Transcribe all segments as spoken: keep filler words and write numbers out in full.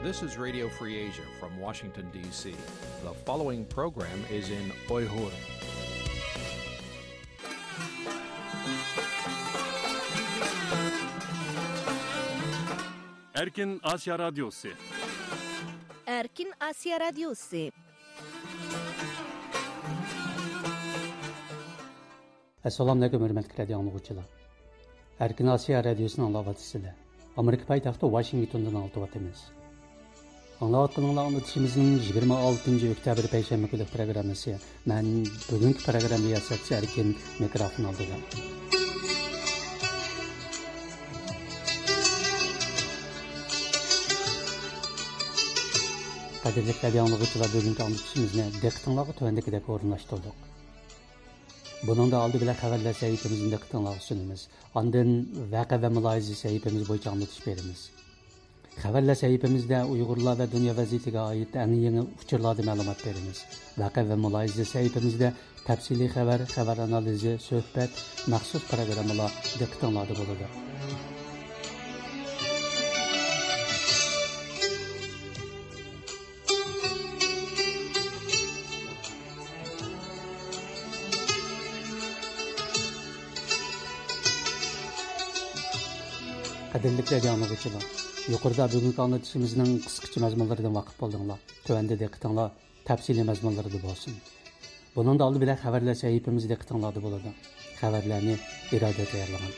This is Radio Free Asia from Washington, D C. The following program is in Uyghur. Erkin Asiya Radyosu. Erkin Asiya Radyosu. ئەسسالامۇئەلەيكۇم، ھۆرمەتلىك رادىيو ئاڭلىغۇچىلار. ئەركىن ئاسىيا رادىيوسىنى ئاڭلاۋاتىسىلەر. ئامېرىكا پايتەختى ۋاشىنگتوندىن ئاڭلىتىۋاتىمىز. ئاڭلاۋاتقىنىڭلار ئاڭلىتىشىمىزنىڭ يىگىرمە ئالتىنچى ئۆكتەبىر پەيشەنبە كۈنلۈك پروگراممىسى. مەن بۈگۈنكى پروگرامما رىياسەتچىسى ئەركىن، مىكروفون ئالدىدا. قەدىرلىك رادىيو ئاڭلىغۇچىلار، بۈگۈنكى ئاڭلىتىشىمىزنى دىققىتىڭلارغا تۆۋەندىكىدەك ئورۇنلاشتۇردۇق. بۇنىڭدا ئالدى بىلەن خەۋەرلەر سەھىپىمىزنى دىققىتىڭلارغا سۇنىمىز. ئاندىن ۋەقە ۋە مۇلاھىزە سەھىپىمىز بويىچە ئاڭلىتىش بېرىمىز. خەۋەرلەر سەھىپىمىزدە ئۇيغۇرلار ۋە دۇنيا ۋەزىيىتىگە ئائىت ئەڭ يېڭى ئۇچۇرلاردىن مەلۇمات بېرىمىز. ۋەقە ۋە مۇلاھىزە سەھىپىمىزدە تەپسىلىي خەۋەر، خەۋەر ئانالىزى، سۆھبەت، مەخسۇس پروگراممىلار دىققىتىڭلاردا بولىدۇ. قەدىرلىك رادىيو ئاڭلىغۇچىلار، يۇقىرىدا بۈگۈنكى ئاڭلىتىشىمىزنىڭ قىسقىچە مەزمۇنلىرىدىن ۋاقىپ بولدۇڭلار. تۆۋەندە دىققىتىڭلار تەپسىلىي مەزمۇنلىرىدا بولسۇن. بۇنىڭدا ئالدى بىلەن خەۋەرلەر سەھىپىمىز دىققىتىڭلاردا بولىدۇ. خەۋەرلەرنى ئىرادە تەييارلىغان.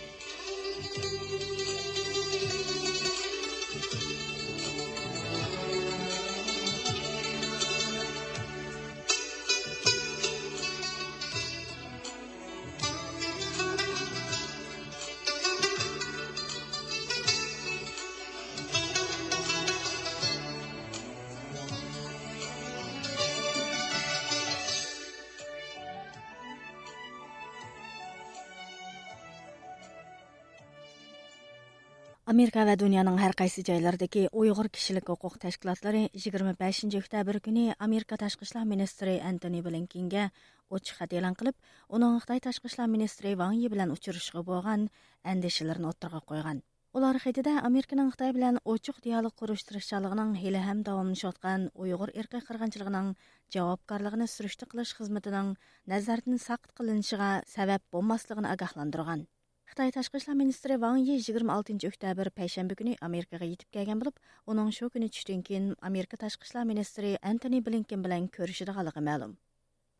ئامېرىكا ۋە دۇنيانىڭ ھەر قايسى جايلىرىدىكى ئۇيغۇر كىشىلىك ھوقۇق تەشكىلاتلىرى يىگىرمە بەشىنچى ئۆكتەبىر كۈنى ئامېرىكا تاشقى ئىشلار مىنىستىرى ئەنتونى بلىنكېنگە ئوچۇق خەت ئېلان قىلىپ، ئۇنىڭ خىتاي تاشقى ئىشلار مىنىستىرى ۋاڭ يى بىلەن ئۇچرىشىشىغا بولغان ئەندىشىلىرىنى ئوتتۇرىغا قويغان. ئۇلار خېتىدە ئامېرىكىنىڭ خىتاي بىلەن ئوچۇق دىيالوگ قۇرۇش تىرىشچانلىقىنىڭ ھېلىھەم داۋاملىشىۋاتقان ئۇيغۇر ئىرقىي قىرغىنچىلىقىنىڭ جاۋابكارلىقىنى سۈرۈشتە قىلىش خىزمىتىنىڭ نەزەردىن ساقىت قىلىنىشىغا سەۋەب بولماسلىقىنى ئاگاھلاندۇرغان. خىتاي تاشقى ئىشلار مىنىستىرى ۋاڭ يى يىگىرمە ئالتىنچى ئۆكتەبىر پەيشەنبە كۈنى ئامېرىكىغا يېتىپ كەلگەن بولۇپ، ئۇنىڭ شۇ كۈنى چۈشتىن كېيىن ئامېرىكا تاشقى ئىشلار مىنىستىرى ئەنتونى بلىنكېن بىلەن كۆرۈشىدىغانلىقى مەلۇم.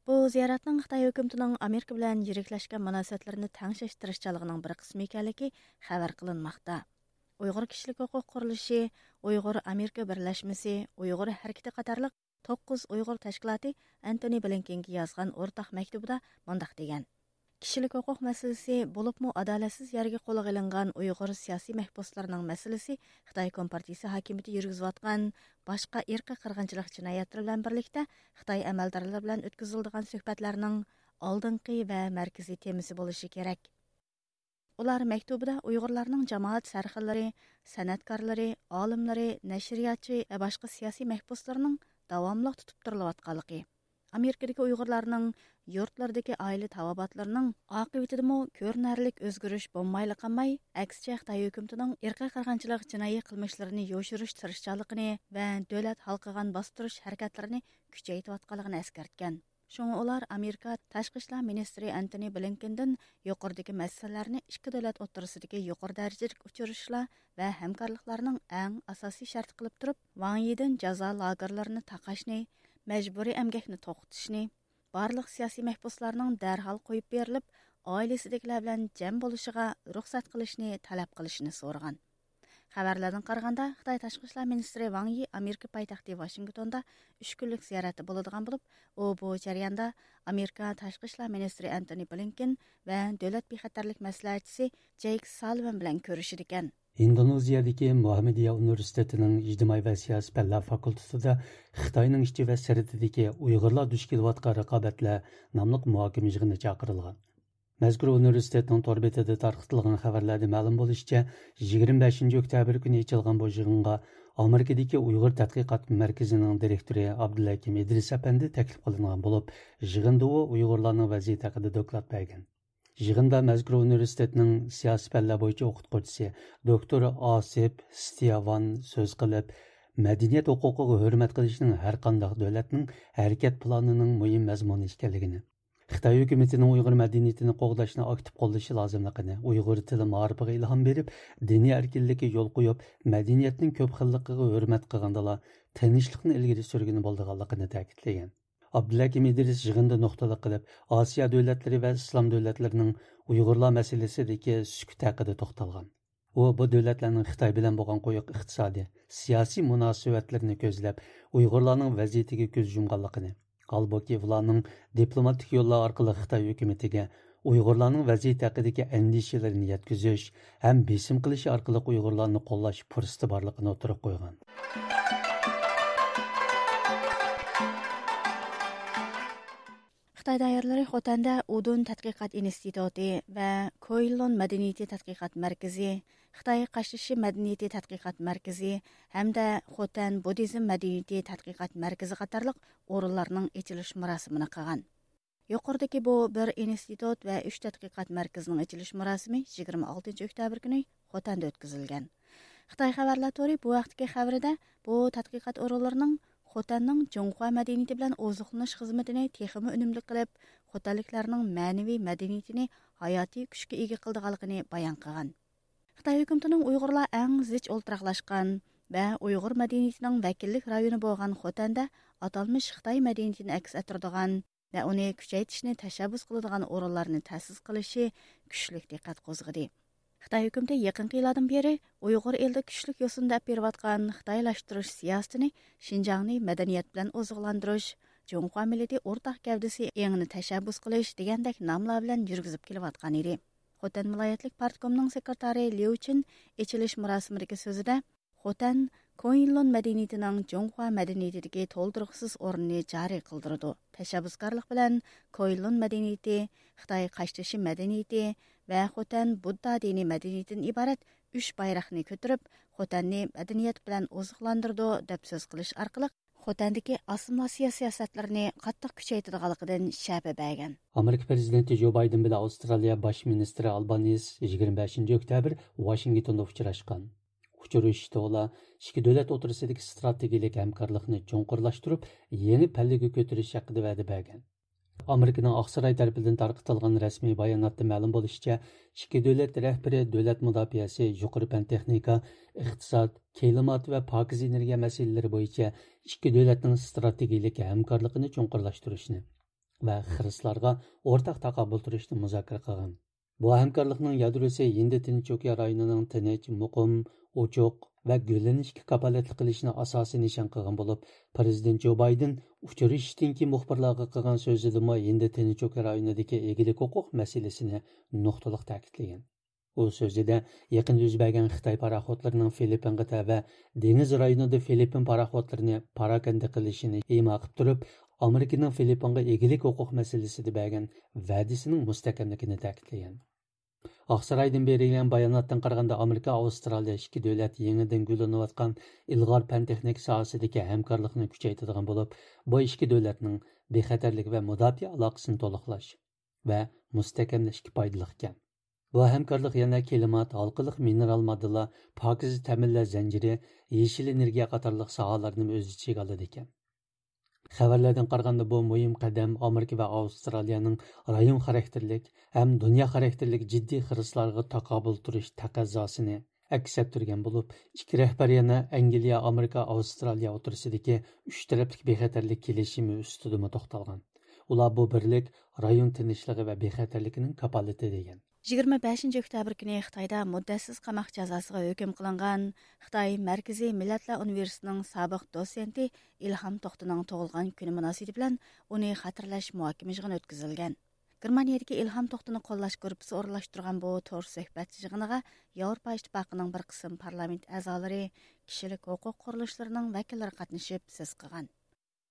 بۇ زىيارەتنىڭ خىتاي ھۆكۈمىتىنىڭ ئامېرىكا بىلەن يىرىكلەشكەن مۇناسىۋەتلىرىنى تەڭشەش تىرىشچانلىقىنىڭ بىر قىسمى ئىكەنلىكى خەۋەر قىلىنماقتا. ئۇيغۇر كىشىلىك ھوقۇق قۇرۇلۇشى، ئۇيغۇر ئامېرىكا بىرلەشمىسى، ئۇيغۇر ھەرىكىتى قاتارلىق توققۇز ئۇيغۇر تەشكىلاتى ئەنتونى بلىنكېنگە يازغان ئورتاق مەكتۇبىدا مۇنداق دېگەن: كىشىلىك ھوقۇق مەسىلىسى، بولۇپمۇ ئادالەتسىز يەرگە قولغا ئېلىنغان ئۇيغۇر سىياسىي مەھبۇسلىرىنىڭ مەسىلىسى خىتاي كومپارتىيىسى ھاكىمىيىتى يۈرگۈزۈۋاتقان باشقا ئىرقىي قىرغىنچىلىق جىنايەتلىرى بىلەن بىرلىكتە خىتاي ئەمەلدارلىرى بىلەن ئۆتكۈزۈلىدىغان سۆھبەتلەرنىڭ ئالدىنقى ۋە مەركىزىي تېمىسى بولۇشى كېرەك. ئۇلار مەكتۇبىدا ئۇيغۇرلارنىڭ جامائەت سەرخىللىرى، سەنئەتكارلىرى، ئالىملىرى، نەشرىياتچى ۋە باشقا سىياسىي مەھبۇسلىرىنىڭ داۋاملىق تۇتۇپ تۇرۇلۇۋاتقانلىقى، ئامېرىكىدىكى ئۇيغۇرلارنىڭ يۇرتلىرىدىكى ئائىلە تاۋابىئاتلىرىنىڭ ئاقىۋىتىدىمۇ كۆرۈنەرلىك ئۆزگىرىش بولمايلا قالماي، ئەكسىچە خىتاي ھۆكۈمىتىنىڭ ئىرقىي قىرغىنچىلىق جىنايى قىلمىشلىرىنى يوشۇرۇش تىرىشچانلىقىنى ۋە دۆلەت ھالقىغان باستۇرۇش ھەرىكەتلىرىنى كۈچەيتىۋاتقانلىقىنى ئەسكەرتكەن. شۇڭا ئۇلار ئامېرىكا تاشقى ئىشلار مىنىستىرى ئەنتونى بلىنكېندىن يۇقىرىدىكى مەسىلىلەرنى ئىككى دۆلەت ئوتتۇرىسىدىكى يۇقىرى دەرىجىلىك ئۇچرىشىشلار ۋە ھەمكارلىقلارنىڭ ئەڭ ئاساسىي شەرتى قىلىپ تۇرۇپ، ۋاڭ يىدىن جازا لاگېرلىرىنى تاقاشنى، مەجبۇرىي ئەمگەكنى توختىتىشنى، بارلىق سىياسىي مەھبۇسلارنىڭ دەرھال قويۇپ بېرىلىپ، ئائىلىسىدىكىلەر بىلەن جەم بولۇشىغا رۇخسەت قىلىشنى تەلەپ قىلىشىنى سورىغان. خەۋەرلەردىن قارىغاندا، خىتاي تاشقى ئىشلار مىنىستىرى ۋاڭ يى ئامېرىكا پايتەختى ۋاشىنگتوندا ئۈچ كۈنلۈك زىيارەتتە بولىدىغان بولۇپ، ئۇ بۇ جەرياندا ئامېرىكا تاشقى ئىشلار مىنىستىرى ئەنتونى بلىنكېن ۋە دۆلەت بىخەتەرلىك مەسلىھەتچىسى جېيك سالىۋان بىلەن كۆرۈشىدىكەن. ئىندونېزىيەدىكى مۇھاممەدىيە ئۇنىۋېرسىتېتىنىڭ ئىجتىمائىي ۋە سىياسىي پەنلەر فاكۇلتېتىدا خىتاينىڭ ئىچى ۋە سىرتىدىكى ئۇيغۇرلار دۇچ كېلىۋاتقان رىقابەتلەر ناملىق مۇھاكىمە يىغىنى چاقىرىلغان. مەزكۇر ئۇنىۋېرسىتېتنىڭ تور بېتىدە تارقىتىلغان خەۋەرلەردە مەلۇم بولۇشىچە، يىگىرمە بەشىنچى ئۆكتەبىر كۈنى ئېچىلغان بۇ يىغىنغا ئامېرىكىدىكى ئۇيغۇر تەتقىقات مەركىزىنىڭ دىرېكتورى ئابدۇلھەكىم ئىدرىس ئەپەندى تەكلىپ قىلىنغان بولۇپ، يىغىندا ئۇ ئۇيغۇرلارنىڭ ۋەزىيىتى ھەققىدە دوكلات بەرگەن. يىغىندا مەزكۇر ئۇنىۋېرسىتېتنىڭ سىياسىي پەنلەر بويىچە ئوقۇتقۇچىسى دوكتور ئاسىپ ستياۋان سۆز قىلىپ، مەدەنىيەت ھوقۇقىغا ھۆرمەت قىلىشنىڭ ھەرقانداق دۆلەتنىڭ ھەرىكەت پىلانىنىڭ مۇھىم مەزمۇنى ئىكەنلىكىنى، خىتاي ھۆكۈمىتىنىڭ ئۇيغۇر مەدەنىيىتىنى قوغداشنى ئاكتىپ قوللىشى لازىملىقىنى، ئۇيغۇر تىلى مائارىپىغا ئىلھام بېرىپ، دىنىي ئەركىنلىككە يول قويۇپ، مەدەنىيەتنىڭ كۆپ خىللىقىغا ھۆرمەت قىلغاندىلا، تىنچلىقنى ئىلگىرى سۈرگىلى بولىدىغانلىقىنى تەكىتلىگەن. ئابدۇلھەكىم ئىدرىس يىغىندا نۇقتىلىق قىلىپ، ئاسىيا دۆلەتلىرى ۋە ئىسلام دۆلەتلىرىنىڭ ئۇيغۇرلار مەسىلىسىدىكى سۈكۈتى ھەققىدە توختالغان. ئۇ بۇ دۆلەتلەرنىڭ خىتاي بىلەن بولغان قويۇق ئىقتىسادىي، سىياسىي مۇناسىۋەتلىرىنى كۆزلەپ، ئۇيغۇرلارنىڭ ۋەزىيىتىگە كۆز يۇمغانلىقىنى، ھالبۇكى، ئۇلارنىڭ دىپلوماتىك يوللار ئارقىلىق خىتاي ھۆكۈمىتىگە ئۇيغۇرلارنىڭ ۋەزىيىتى ھەققىدىكى ئەندىشىلىرىنى يەتكۈزۈش ھەم بېسىم قىلىش ئارقىلىق ئۇيغۇرلارنى قوللاش پۇرسىتى بارلىقىنى ئوتتۇرىغا قويغان. خىتاي دائىرىلىرى خوتەندە ئۇدۇن تەتقىقات ئىنستىتۇتى ۋە كوئىلون مەدەنىيىتى تەتقىقات مەركىزى، خىتاي قاشتېشى مەدەنىيىتى تەتقىقات مەركىزى ھەمدە خوتەن بۇددىزم مەدەنىيىتى تەتقىقات مەركىزى قاتارلىق ئورۇنلارنىڭ ئېچىلىش مۇراسىمىنى قىلغان. يۇقىرىدىكى بۇ بىر ئىنستىتۇت ۋە ئۈچ تەتقىقات مەركىزىنىڭ ئېچىلىش مۇراسىمى يىگىرمە ئالتىنچى ئۆكتەبىر كۈنى خوتەندە ئۆتكۈزۈلگەن. خىتاي خەۋەرلەر تورى بۇ ھەقتىكى خەۋىرىدە، بۇ تەتقىقات ئورۇنلىرىنىڭ خوتەننىڭ جۇڭخۇا مەدەنىيىتى بىلەن ئوزۇقلىنىش خىزمىتىنى تېخىمۇ ئۈنۈملۈك قىلىپ، خوتەنلىكلەرنىڭ مەنىۋى مەدەنىيىتىنى ھاياتىي كۈچكە ئىگە قىلىدىغانلىقىنى بايان قىلغان. خىتاي ھۆكۈمىتىنىڭ ئۇيغۇرلار ئەڭ زىچ ئولتۇراقلاشقان ۋە ئۇيغۇر مەدەنىيىتىنىڭ ۋەكىللىك رايونى بولغان خوتەندە ئاتالمىش خىتاي مەدەنىيىتىنى ئەكس ئەتتۈرىدىغان ۋە ئۇنى كۈچەيتىشنى تەشەببۇس قىلىدىغان ئورۇنلارنى تەسىس قىلىشى كۈچلۈك دىققەت قوزغىدى. خىتاي ھۆكۈمىتى يېقىنقى يىللاردىن بېرى ئۇيغۇر ئېلىدا كۈچلۈك يوسۇن دەپ بېرىۋاتقان خىتايلاشتۇرۇش سىياسىتىنى شىنجاڭنى مەدەنىيەت بىلەن ئوزۇقلاندۇرۇش، جۇڭخۇا مىللىتى ئورتاق گەۋدىسى ئېڭىنى تەشەببۇس قىلىش دېگەندەك ناملار بىلەن يۈرگۈزۈپ كېلىۋاتقان ئىدى. خوتەن ۋىلايەتلىك پارتكومنىڭ سېكرېتارى ليۇ چىن ئېچىلىش مۇراسىمىدىكى سۆزىدە، خوتەن كوئىنلۇن مەدەنىيىتىنىڭ جۇڭخۇا مەدەنىيىتىدىكى تولدۇرغۇسىز ئورنىنى جارى قىلدۇرىدۇ. تەشەببۇسكارلىق بىلەن كوئىنلۇن مەدەنىيىتى، خىتاي قاشتېشى مەدەنىيىتى ۋە خوتەن بۇددا دىنىي مەدەنىيىتىدىن ئىبارەت ئۈچ بايراقنى كۆتۈرۈپ، خوتەننى مەدەنىيەت بىلەن ئوزۇقلاندۇرىدۇ، دەپ سۆز قىلىش ئارقىلىق خوتەندىكى ئاسسىمىلياتسىيە سىياسەتلىرىنى قاتتىق كۈچەيتىدىغانلىقىدىن شەپە بەرگەن. ئامېرىكا پىرېزىدېنتى جو بايدېن بىلەن ئاۋسترالىيە باش مىنىستىرى ئالبانىز يىگىرمە بەشىنچى ئۆكتەبىر ۋاشىنگتوندا ئۇچراشقان. ئۇچرىشىشتا ئۇلار ئىككى دۆلەت ئوتتۇرىسىدىكى ئىستراتېگىيىلىك ھەمكارلىقنى چوڭقۇرلاشتۇرۇپ، يېڭى پەللىگە كۆتۈرۈش ھەققىدە ۋەدە بەرگەن. ئامېرىكىنىڭ ئاقساراي تەرىپىدىن تارقىتىلغان رەسمىي باياناتتا مەلۇم بولۇشىچە، ئىككى دۆلەت رەھبىرى دۆلەت مۇداپىئەسى، يۇقىرى پەن تېخنىكا، ئىقتىساد، كىلىمات ۋە پاكىز ئېنېرگىيە مەسىلىلىرى بويىچە ئىككى دۆلەتنىڭ ئىستراتېگىيىلىك ھەمكارلىقىنى چوڭقۇرلاشتۇرۇشنى ۋە خىرىسلارغا ئورتاق تاقابىل تۇرۇشنى مۇزاكىرە قىلغان. بۇ ھەمكارلىقنىڭ يادروسى ھىندى تىنچ ئوكيان رايونىنىڭ تىنچ، مۇقىم، ئوچۇق ۋە گۈللىنىشكە كاپالەتلىك قىلىشنى ئاساسىي نىشان قىلغان بولۇپ، پىرېزىدېنت جو بايدېن ئۇچرىشىشتىن كېيىن مۇخبىرلارغا قىلغان سۆزىدىمۇ ھىندى تىنچ ئوكيان رايونىدىكى ئىگىلىك ھوقۇق مەسىلىسىنى نۇقتىلىق تەكىتلىگەن. ئۇ سۆزىدە يېقىندا يۈز بەرگەن خىتاي پاراخوتلىرىنىڭ فىلىپپىنغا تەۋە دېڭىز رايونىدا فىلىپپىن پاراخوتلىرىنى پاراكەندە قىلىشىنى ئىما قىلىپ تۇرۇپ، ئامېرىكىنىڭ فىلىپپىنغا ئىگىلىك ھوقۇق مەسىلىسىدە بەرگەن ۋەدىسىنىڭ مۇستەھكەملىكىنى تەكىتلىگەن. ئاقسارايدىن بېرىلگەن باياناتتىن قارىغاندا، ئامېرىكا، ئاۋسترالىيە ئىككى دۆلەت يېڭىدىن گۈللىنىۋاتقان ئىلغار پەن تېخنىكا ساھەسىدىكى ھەمكارلىقنى كۈچەيتىدىغان بولۇپ، بۇ ئىككى دۆلەتنىڭ بىخەتەرلىك ۋە مۇداپىئە ئالاقىسىنى تولۇقلاش ۋە مۇستەھكەملەشكە پايدىلىق ئىكەن. بۇ ھەمكارلىق يەنە كىلىمات، ھالقىلىق مىنېرال ماددىلار، پاكىز تەمىنلەش زەنجىرى، يېشىل ئېنېرگىيە قاتارلىق ساھەلەرنىمۇ ئۆز ئىچىگە ئالىدىكەن. خەۋەرلەردىن قارىغاندا، بۇ مۇھىم قەدەم ئامېرىكا ۋە ئاۋسترالىيەنىڭ رايون خاراكتېرلىك ھەم دۇنيا خاراكتېرلىك جىددىي خىرىسلارغا تاقابىل تۇرۇش تەقەززاسىنى ئەكس ئەتتۈرگەن بولۇپ، ئىككى رەھبەر يەنە ئەنگلىيە، ئامېرىكا، ئاۋسترالىيە ئوتتۇرىسىدىكى ئۈچ تەرەپلىك بىخەتەرلىك كېلىشىمى ئۈستىدىمۇ توختالغان. ئۇلار بۇ بىرلىك رايون تىنچلىقى ۋە بىخەتەرلىكىنىڭ كاپالىتى دېگەن. يىگىرمە بەشىنچى ئۆكتەبىر كۈنى خىتايدا مۇددەتسىز قاماق جازاسىغا ھۆكۈم قىلىنغان خىتاي مەركىزىي مىللەتلەر ئۇنىۋېرسىتېتىنىڭ سابىق دوتسېنتى ئىلھام توختىنىڭ تۇغۇلغان كۈنى مۇناسىۋىتى بىلەن ئۇنى خاتىرىلەش مۇھاكىمە يىغىنى ئۆتكۈزۈلگەن. گېرمانىيەدىكى ئىلھام توختىنى قوللاش گۇرۇپپىسى ئورۇنلاشتۇرغان بۇ تور سۆھبەت يىغىنىغا ياۋروپا ئىتتىپاقىنىڭ بىر قىسىم پارلامېنت ئەزالىرى، كىشىلىك ھوقۇق قۇرۇلۇشلىرىنىڭ ۋەكىللىرى قاتنىشىپ سۆز قىلغان.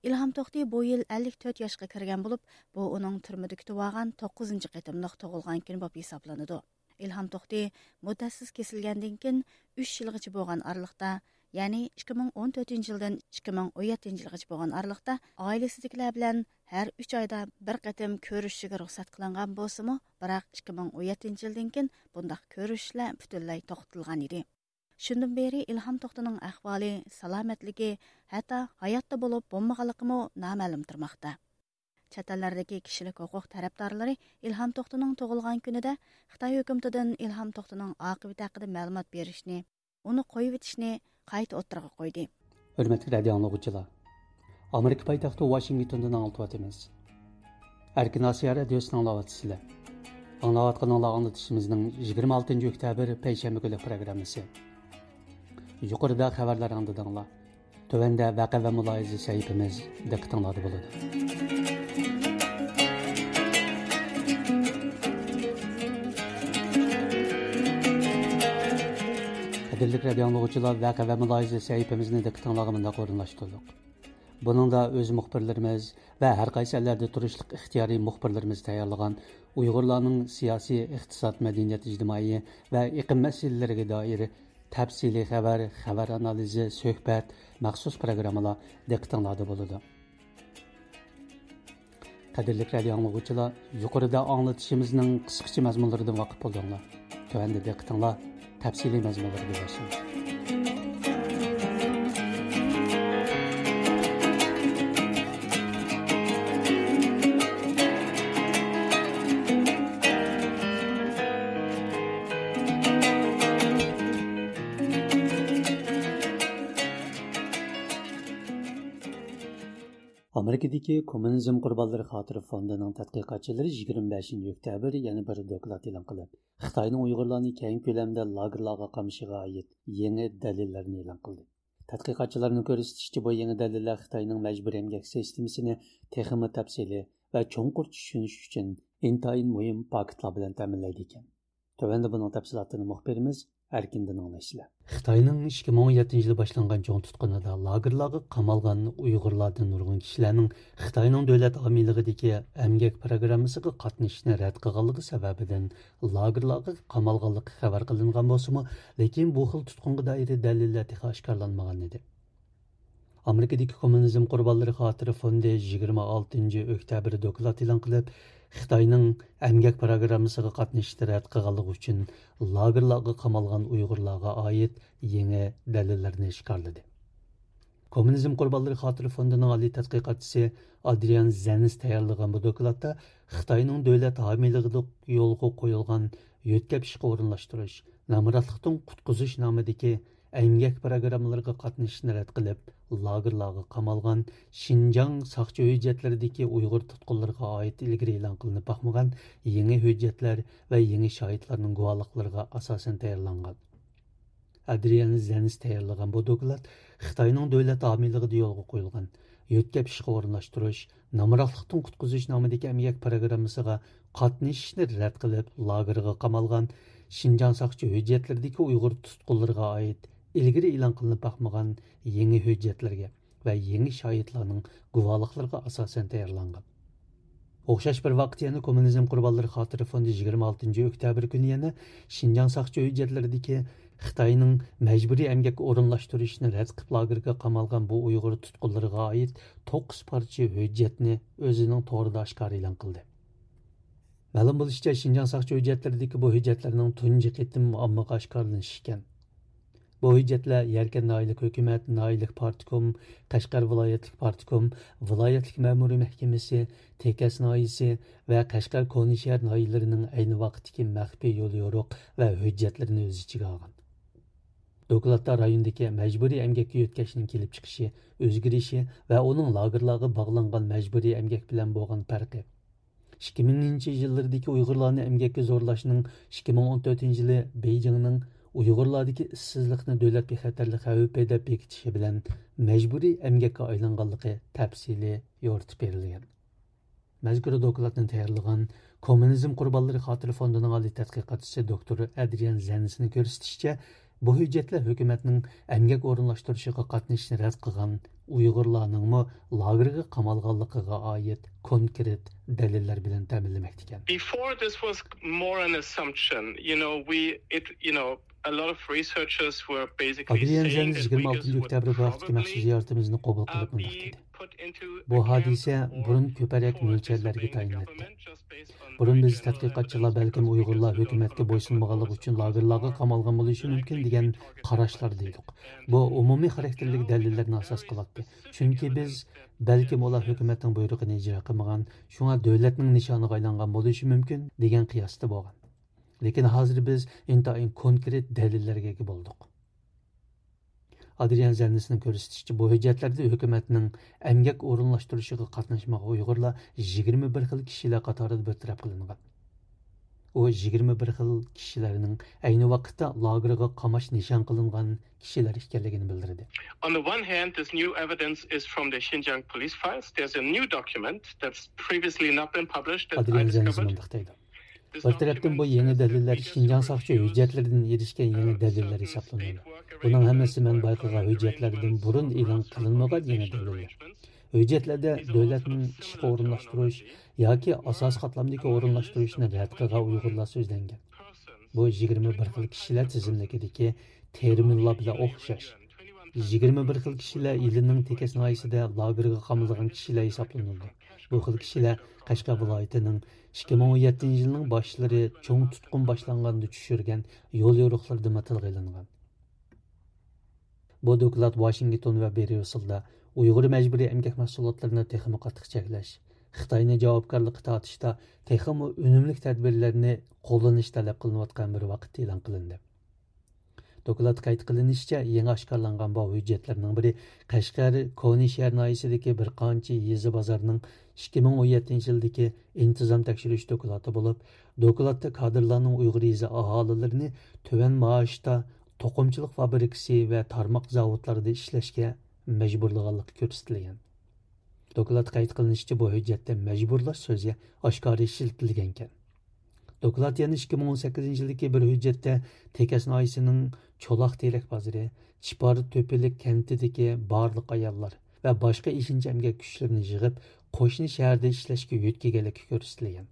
ئىلھام توختى بۇ يىل ئەللىك تۆت ياشقا كىرگەن بولۇپ، بۇ ئۇنىڭ تۈرمىدە كۈتۈۋالغان توققۇزىنچى قېتىملىق تۇغۇلغان كۈنى بولۇپ ھېسابلىنىدۇ. ئىلھام توختى مۇددەتسىز كېسىلگەندىن كېيىن ئۈچ يىلغىچە بولغان ئارىلىقتا، يەنى ئىككى مىڭ ئون تۆتىنچى يىلدىن ئىككى مىڭ ئون يەتتىنچى يىلغىچە بولغان ئارىلىقتا ئائىلىسىدىكىلەر بىلەن ھەر ئۈچ ئايدا بىر قېتىم كۆرۈشۈشىگە رۇخسەت قىلىنغان بولسىمۇ، بىراق ئىككى مىڭ ئون يەتتىنچى يىلدىن كېيىن بۇنداق كۆرۈشۈشلەر پۈتۈنلەي توختىتىلغان ئىدى. شۇندىن بېرى ئىلھام توختىنىڭ ئەھۋالى، سالامەتلىكى، ھەتتا ھاياتتا بولۇپ بولمىغانلىقىمۇ نامەلۇم تۇرماقتا. چەت ئەللەردىكى كىشىلىك ھوقۇق تەرەپدارلىرى ئىلھام توختىنىڭ تۇغۇلغان كۈنىدە خىتاي ھۆكۈمىتىدىن ئىلھام توختىنىڭ ئاقىۋىتى ھەققىدە مەلۇمات بېرىشنى، ئۇنى قويۇۋېتىشنى قايتا ئوتتۇرىغا قويدى. ھۆرمەتلىك رادىئو ئاڭلىغۇچىلار، ئامېرىكا پايتەختى ۋاشىنگتوندىن ئاڭلىتىۋاتىمىز. ئەركىن ئاسىيا رادىيوسىنى ئاڭلاۋاتىسىلەر. ئاڭلاۋاتقىنىڭلار ئاڭلىتىشىمىزنىڭ يىگىرمە ئالتىنچى ئۆكتەبىر پەيشەنبە كۈنلۈك پروگراممىسى. يۇقىرىدا خەۋەرلەر ئاڭلىدىڭلار. تۆۋەندە ۋەقە ۋە مۇلاھىزە سەھىپىمىز دىققىتىڭلاردا بولىدۇ. قەدىرلىك رادىئو ئاڭلىغۇچىلار، ۋەقە ۋە مۇلاھىزە سەھىپىمىزنى دىققىتىڭلارغا مۇنداق ئورۇنلاشتۇردۇق. بۇنىڭدا ئۆز مۇخبىرلىرىمىز ۋە ھەر قايسى ئەللەردە تۇرۇشلۇق ئىختىيارىي مۇخبىرلىرىمىز تەييارلىغان ئۇيغۇرلارنىڭ سىياسىي، ئىقتىساد، مەدەنىيەت، ئىجتىمائىي ۋە ئېقىم مەسىلىلىرىگە دائىر تەپسىلىي خەۋەر، خەۋەر ئانالىزى، سۆھبەت، مەخسۇس پروگراممىلار دىققىتىڭلاردا بولىدۇ. قەدىرلىك رادىئو ئاڭلىغۇچىلار، يۇقىرىدا ئاڭلىتىشىمىزنىڭ قىسقىچە مەزمۇنلىرىدىن ۋاقىپ بولدۇڭلار. تۆۋەندە دىققىتىڭلار تەپسىلىي مەزمۇنلىرىغا يۈزلەنسۇن. ئامېرىكىدىكى كوممۇنىزم قۇربانلىرى خاتىرە فوندىنىڭ تەتقىقاتچىلىرى يىگىرمە بەشىنچى ئۆكتەبىر يەنە بىر دوكلات ئېلان قىلىپ، خىتاينىڭ ئۇيغۇرلارنى كەڭ كۆلەمدە لاگېرلارغا قامىشىغا ئائىت يېڭى دەلىللەرنى ئېلان قىلدى. تەتقىقاتچىلارنىڭ كۆرسىتىشىچە، بۇ يېڭى دەلىللەر خىتاينىڭ مەجبۇرىي ئەمگەك سىستېمىسىنى تېخىمۇ تەپسىلىي ۋە چوڭقۇر چۈشىنىش ئۈچۈن ئىنتايىن مۇھىم پاكىتلار بىلەن تەمىنلەيدىكەن. تۆۋەندە بۇنىڭ تەپسىلاتىنى مۇخبىرىمىز ئەركىندىن ئاڭلايسىلەر. خىتاينىڭ ئىككى مىڭ ئون يەتتىنچى يىلى باشلانغان چوڭ تۇتقۇنىدا لاگېرلارغا قامالغان ئۇيغۇرلاردىن نۇرغۇن كىشىلەرنىڭ خىتاينىڭ دۆلەت ھامىيلىقىدىكى ئەمگەك پىروگراممىسىغا قاتنىشىشنى رەت قىلغانلىقى سەۋەبىدىن لاگېرلارغا قامالغانلىقى خەۋەر قىلىنغان بولسىمۇ، لېكىن بۇ خىل تۇتقۇنغا دائىر دەلىللەر تېخى ئاشكارىلانمىغان ئىدى. ئامېرىكىدىكى كوممۇنىزم قۇربانلىرى خاتىرە فوندى يىگىرمە ئالتىنچى ئۆكتەبىر دوكلات ئېلان قىلىپ، خىتاينىڭ ئەمگەك پىروگراممىسىغا قاتنىشىشنى رەت قىلغانلىقى ئۈچۈن لاگېرلارغا قامالغان ئۇيغۇرلارغا ئائىت يېڭى دەلىللەرنى ئاشكارىلىدى. كوممۇنىزم قۇربانلىرى خاتىرە فوندىنىڭ ئالىي تەتقىقاتچىسى ئادرىيان زېنس تەييارلىغان بۇ دوكلاتتا خىتاينىڭ دۆلەت ھامىيلىقىدا يولغا قويۇلغان يۆتكەپ ئىشقا ئورۇنلاشتۇرۇش، نامراتلىقتىن قۇتقۇزۇش نامىدىكى ئەمگەك پىروگراممىلىرىغا قاتنىشىشنى رەت قىلىپ، لاگېرلارغا قامالغان شىنجاڭ ساقچى ھۆججەتلىرىدىكى ئۇيغۇر تۇتقۇنلىرىغا ئائىت ئىلگىرى ئېلان قىلىنىپ باقمىغان يېڭى ھۆججەتلەر ۋە يېڭى شاھىتلارنىڭ گۇۋاھلىقلىرىغا ئاساسەن تەييارلانغان. ئادرىيان زېنس تەييارلىغان بۇ دوكلات خىتاينىڭ دۆلەت ھامىيلىقىدا يولغا قويۇلغان يۆتكەپ ئىشقا ئورۇنلاشتۇرۇش، نامراتلىقتىن قۇتقۇزۇش نامىدىكى ئەمگەك پىروگراممىسىغا قاتنىشىشنى رەت قىلىپ، لاگېرغا قامالغان شىنجاڭ ساقچى ھۆججەتلىرىدىكى ئۇيغۇر تۇتقۇنلىرىغا ئائىت ئىلگىرى ئېلان قىلىنىپ باقمىغان يېڭى ھۆججەتلەرگە ۋە يېڭى شاھىتلارنىڭ گۇۋاھلىقلىرىغا ئاساسەن تەييارلانغان. ئوخشاش بىر ۋاقىتتا يەنە كوممۇنىزم قۇربانلىرى خاتىرە فوندى يىگىرمە ئالتىنچى ئۆكتەبىر كۈنى يەنە شىنجاڭ ساقچى ھۆججەتلىرىدىكى خىتاينىڭ مەجبۇرىي ئەمگەككە ئورۇنلاشتۇرۇشىنى رەت قىلىپ لاگېرغا قامالغان بۇ ئۇيغۇر تۇتقۇنلىرىغا ئائىت توققۇز پارچە ھۆججەتنى ئۆزىنىڭ تورىدا ئاشكارا ئېلان قىلدى. مەلۇم بولۇشىچە، شىنجاڭ ساقچى ھۆججەتلىرىدىكى بۇ ھۆججەتلەرنىڭ تۇنجى قېتىم ئاممىغا ئاشكارىلىنىشى ئىكەن. بۇ ھۆججەتلەر يەركەن ناھىيەلىك ھۆكۈمەت، ناھىيەلىك پارتكوم، قەشقەر ۋىلايەتلىك پارتكوم، ۋىلايەتلىك مەمۇرىي مەھكىمىسى، تېكەس ناھىيەسى ۋە قەشقەر كونىشەھەر ناھىيەلىرىنىڭ ئەينى ۋاقىتتىكى مەخپىي يوليورۇق ۋە ھۆججەتلىرىنى ئۆز ئىچىگە ئالغان. دوكلاتتا رايوندىكى مەجبۇرىي ئەمگەككە يۆتكەشنىڭ كېلىپ چىقىشى، ئۆزگىرىشى ۋە ئۇنىڭ لاگېرلارغا باغلانغان مەجبۇرىي ئەمگەك بىلەن بولغان پەرقى، ئىككى مىڭىنچى يىللىرىدىكى ئۇيغۇرلارنى ئەمگەككە زورلاشنىڭ ئىككى مىڭ ئون تۆتىنچى يىلى بېيجىڭنىڭ ئۇيغۇرلاردىكى ئىشسىزلىقنى دۆلەت بىخەتەرلىك خەۋپى دەپ بېكىتىشى بىلەن مەجبۇرىي ئەمگەككە ئايلانغانلىقى تەپسىلىي يورۇتۇپ بېرىلگەن. مەزكۇر دوكلاتنى تەييارلىغان كوممۇنىزم قۇربانلىرى خاتىرە فوندىنىڭ ئالىي تەتقىقاتچىسى دوكتور ئەدرىيان زېنسنىڭ كۆرسىتىشىچە، بۇ ھۆججەتلەر ھۆكۈمەتنىڭ ئەمگەك ئورۇنلاشتۇرۇشىغا قاتنىشىشنى رەت قىلغان ئۇيغۇرلارنىڭمۇ لاگېرغا قامالغانلىقىغا ئائىت كونكرېت دەلىللەر بىلەن تەمىنلىمەكتىكەن. Before, this was more an assumption. You know, we, it, you know, a lot of researchers were basically ئادرىيان زېنس يىگىرمە ئالتىنچى ئۆكتەبىر بۇ ھەقتىكى مەخسۇس زىيارىتىمىزنى قوبۇل قىلىپ مۇنداق دېدى. بۇ ھادىسە بۇرۇن كۆپرەك مۆلچەرلەرگە تايىناتتى. بۇرۇن بىز تەتقىقاتچىلار بەلكىم ئۇيغۇرلار ھۆكۈمەتكە بويسۇنمىغانلىقى ئۈچۈن لاگېرلارغا قامالغان بولۇشى مۇمكىن دېگەن قاراشلاردا ئىدۇق. بۇ ئومۇمىي خاراكتېرلىك دەلىللەرنى ئاساس قىلاتتى. چۈنكى بىز بەلكىم ئۇلار ھۆكۈمەتنىڭ بۇيرۇقىنى ئىجرا قىلمىغان، شۇڭا دۆلەتنىڭ نىشانىغا ئايلانغان بولۇشى مۇمكىن دېگەن قىياستا بولغان. لېكىن ھازىر بىز ئىنتايىن كونكرېت دەلىللەرگە ئىگە بولدۇق. ئادرىيان زەننىسنىڭ كۆرسىتىشىچە، بۇ ھۆججەتلەردە ھۆكۈمەتنىڭ ئەمگەك ئورۇنلاشتۇرۇشىغا قاتناشمىغان ئۇيغۇرلار يىگىرمە بىر خىل كىشىلەر قاتارىدا بىر تەرەپ قىلىنغان. ئۇ يىگىرمە بىر خىل كىشىلەرنىڭ ئەينى ۋاقىتتا لاگېرغا قاماش نىشان قىلىنغان كىشىلەر ئىكەنلىكىنى بىلدۈردى. On the one hand, this new evidence is from the Xinjiang police files. There's a new document that's previously not been published that I ئادرىيان زەننىس discovered. مۇنداق دەيدۇ. بىر تەرەپتىن بۇ يېڭى دەلىللەر شىنجاڭ ساقچى ھۆججەتلىرىدىن ئېرىشكەن يېڭى دەلىللەر ھېسابلىنىدۇ. بۇنىڭ ھەممىسى مەن بايقىغان ھۆججەتلەردىن بۇرۇن ئېلان قىلىنمىغان يېڭى دەلىللەر. ھۆججەتلەردە دۆلەتنىڭ ئىشقا ئورۇنلاشتۇرۇش ياكى ئاساسىي قاتلامدىكى ئورۇنلاشتۇرۇشنى رەت قىلغان ئۇيغۇرلار سۆزلەنگەن. بۇ يىگىرمە بىر خىل كىشىلەر تىزىملىكىدىكى تېرمىنلار بىلەن ئوخشاش. يىگىرمە بىر خىل كىشىلەر ئىلىنىڭ تېكەس ناھىيەسىدە لاگېرغا قامىلىدىغان كىشىلەر ھېسابلىنىدۇ. بۇ خىل كىشىلەر قەشقەر ۋىلايىتىنىڭ ئىككى مىڭ ئون يەتتىنچى يىلنىڭ باشلىرى چوڭ تۇتقۇن باشلانغاندا چۈشۈرگەن يول يورۇقلىرىدىمۇ تىلغا ئېلىنغان. بۇ دوكلات ۋاشىنگتون ۋە بريۇسسېلدا ئۇيغۇر مەجبۇرىي ئەمگەك مەھسۇلاتلىرىنى تېخىمۇ قاتتىق چەكلەش، خىتاينى جاۋابكارلىققا تارتىشتا تېخىمۇ ئۈنۈملۈك تەدبىرلەرنى قوللىنىش تەلەپ قىلىنىۋاتقان بىر ۋاقىتتا ئېلان قىلىندى. دوكلاتتا قەيت قىلىنىشىچە، يېڭى ئاشكارىلانغان بۇ ھۆججەتلەرنىڭ بىرى قەشقەر كونا شەھەر ناھىيەسىدىكى بىر قانچە يېزا بازارنىڭ ئىككى مىڭ ئون يەتتىنچى يىلدىكى ئىنتىزام تەكشۈرۈش دوكلاتى بولۇپ، دوكلاتتا كادىرلارنىڭ ئۇيغۇر يېزا ئاھالىلىرىنى تۆۋەن مائاشتا توقۇمىچىلىق فابرىكىسى ۋە تارماق زاۋۇتلاردا ئىشلەشكە مەجبۇرلىغانلىقى كۆرسىتىلگەن. دوكلاتتا قەيت قىلىنىشىچە، بۇ ھۆججەتتە مەجبۇرلاش سۆزى ئاشكارا ئىشلىتىلگەنىكەن. دوكلات يەنە ئىككى مىڭ ئون سەككىزىنچى يىلدىكى بىر ھۆججەتتە تېكەس ناھىيەسىنىڭ چولاق تېرەك بازىرى، چىپار تۆپىلىك كەنتىدىكى بارلىق ئاياللار ۋە باشقا ئېشىنچا ئەمگەك كۈچلىرىنى يىغىپ، قوشنا شەھەردە ئىشلەشكە يۆتكىگەنلىكى كۆرسىتىلگەن.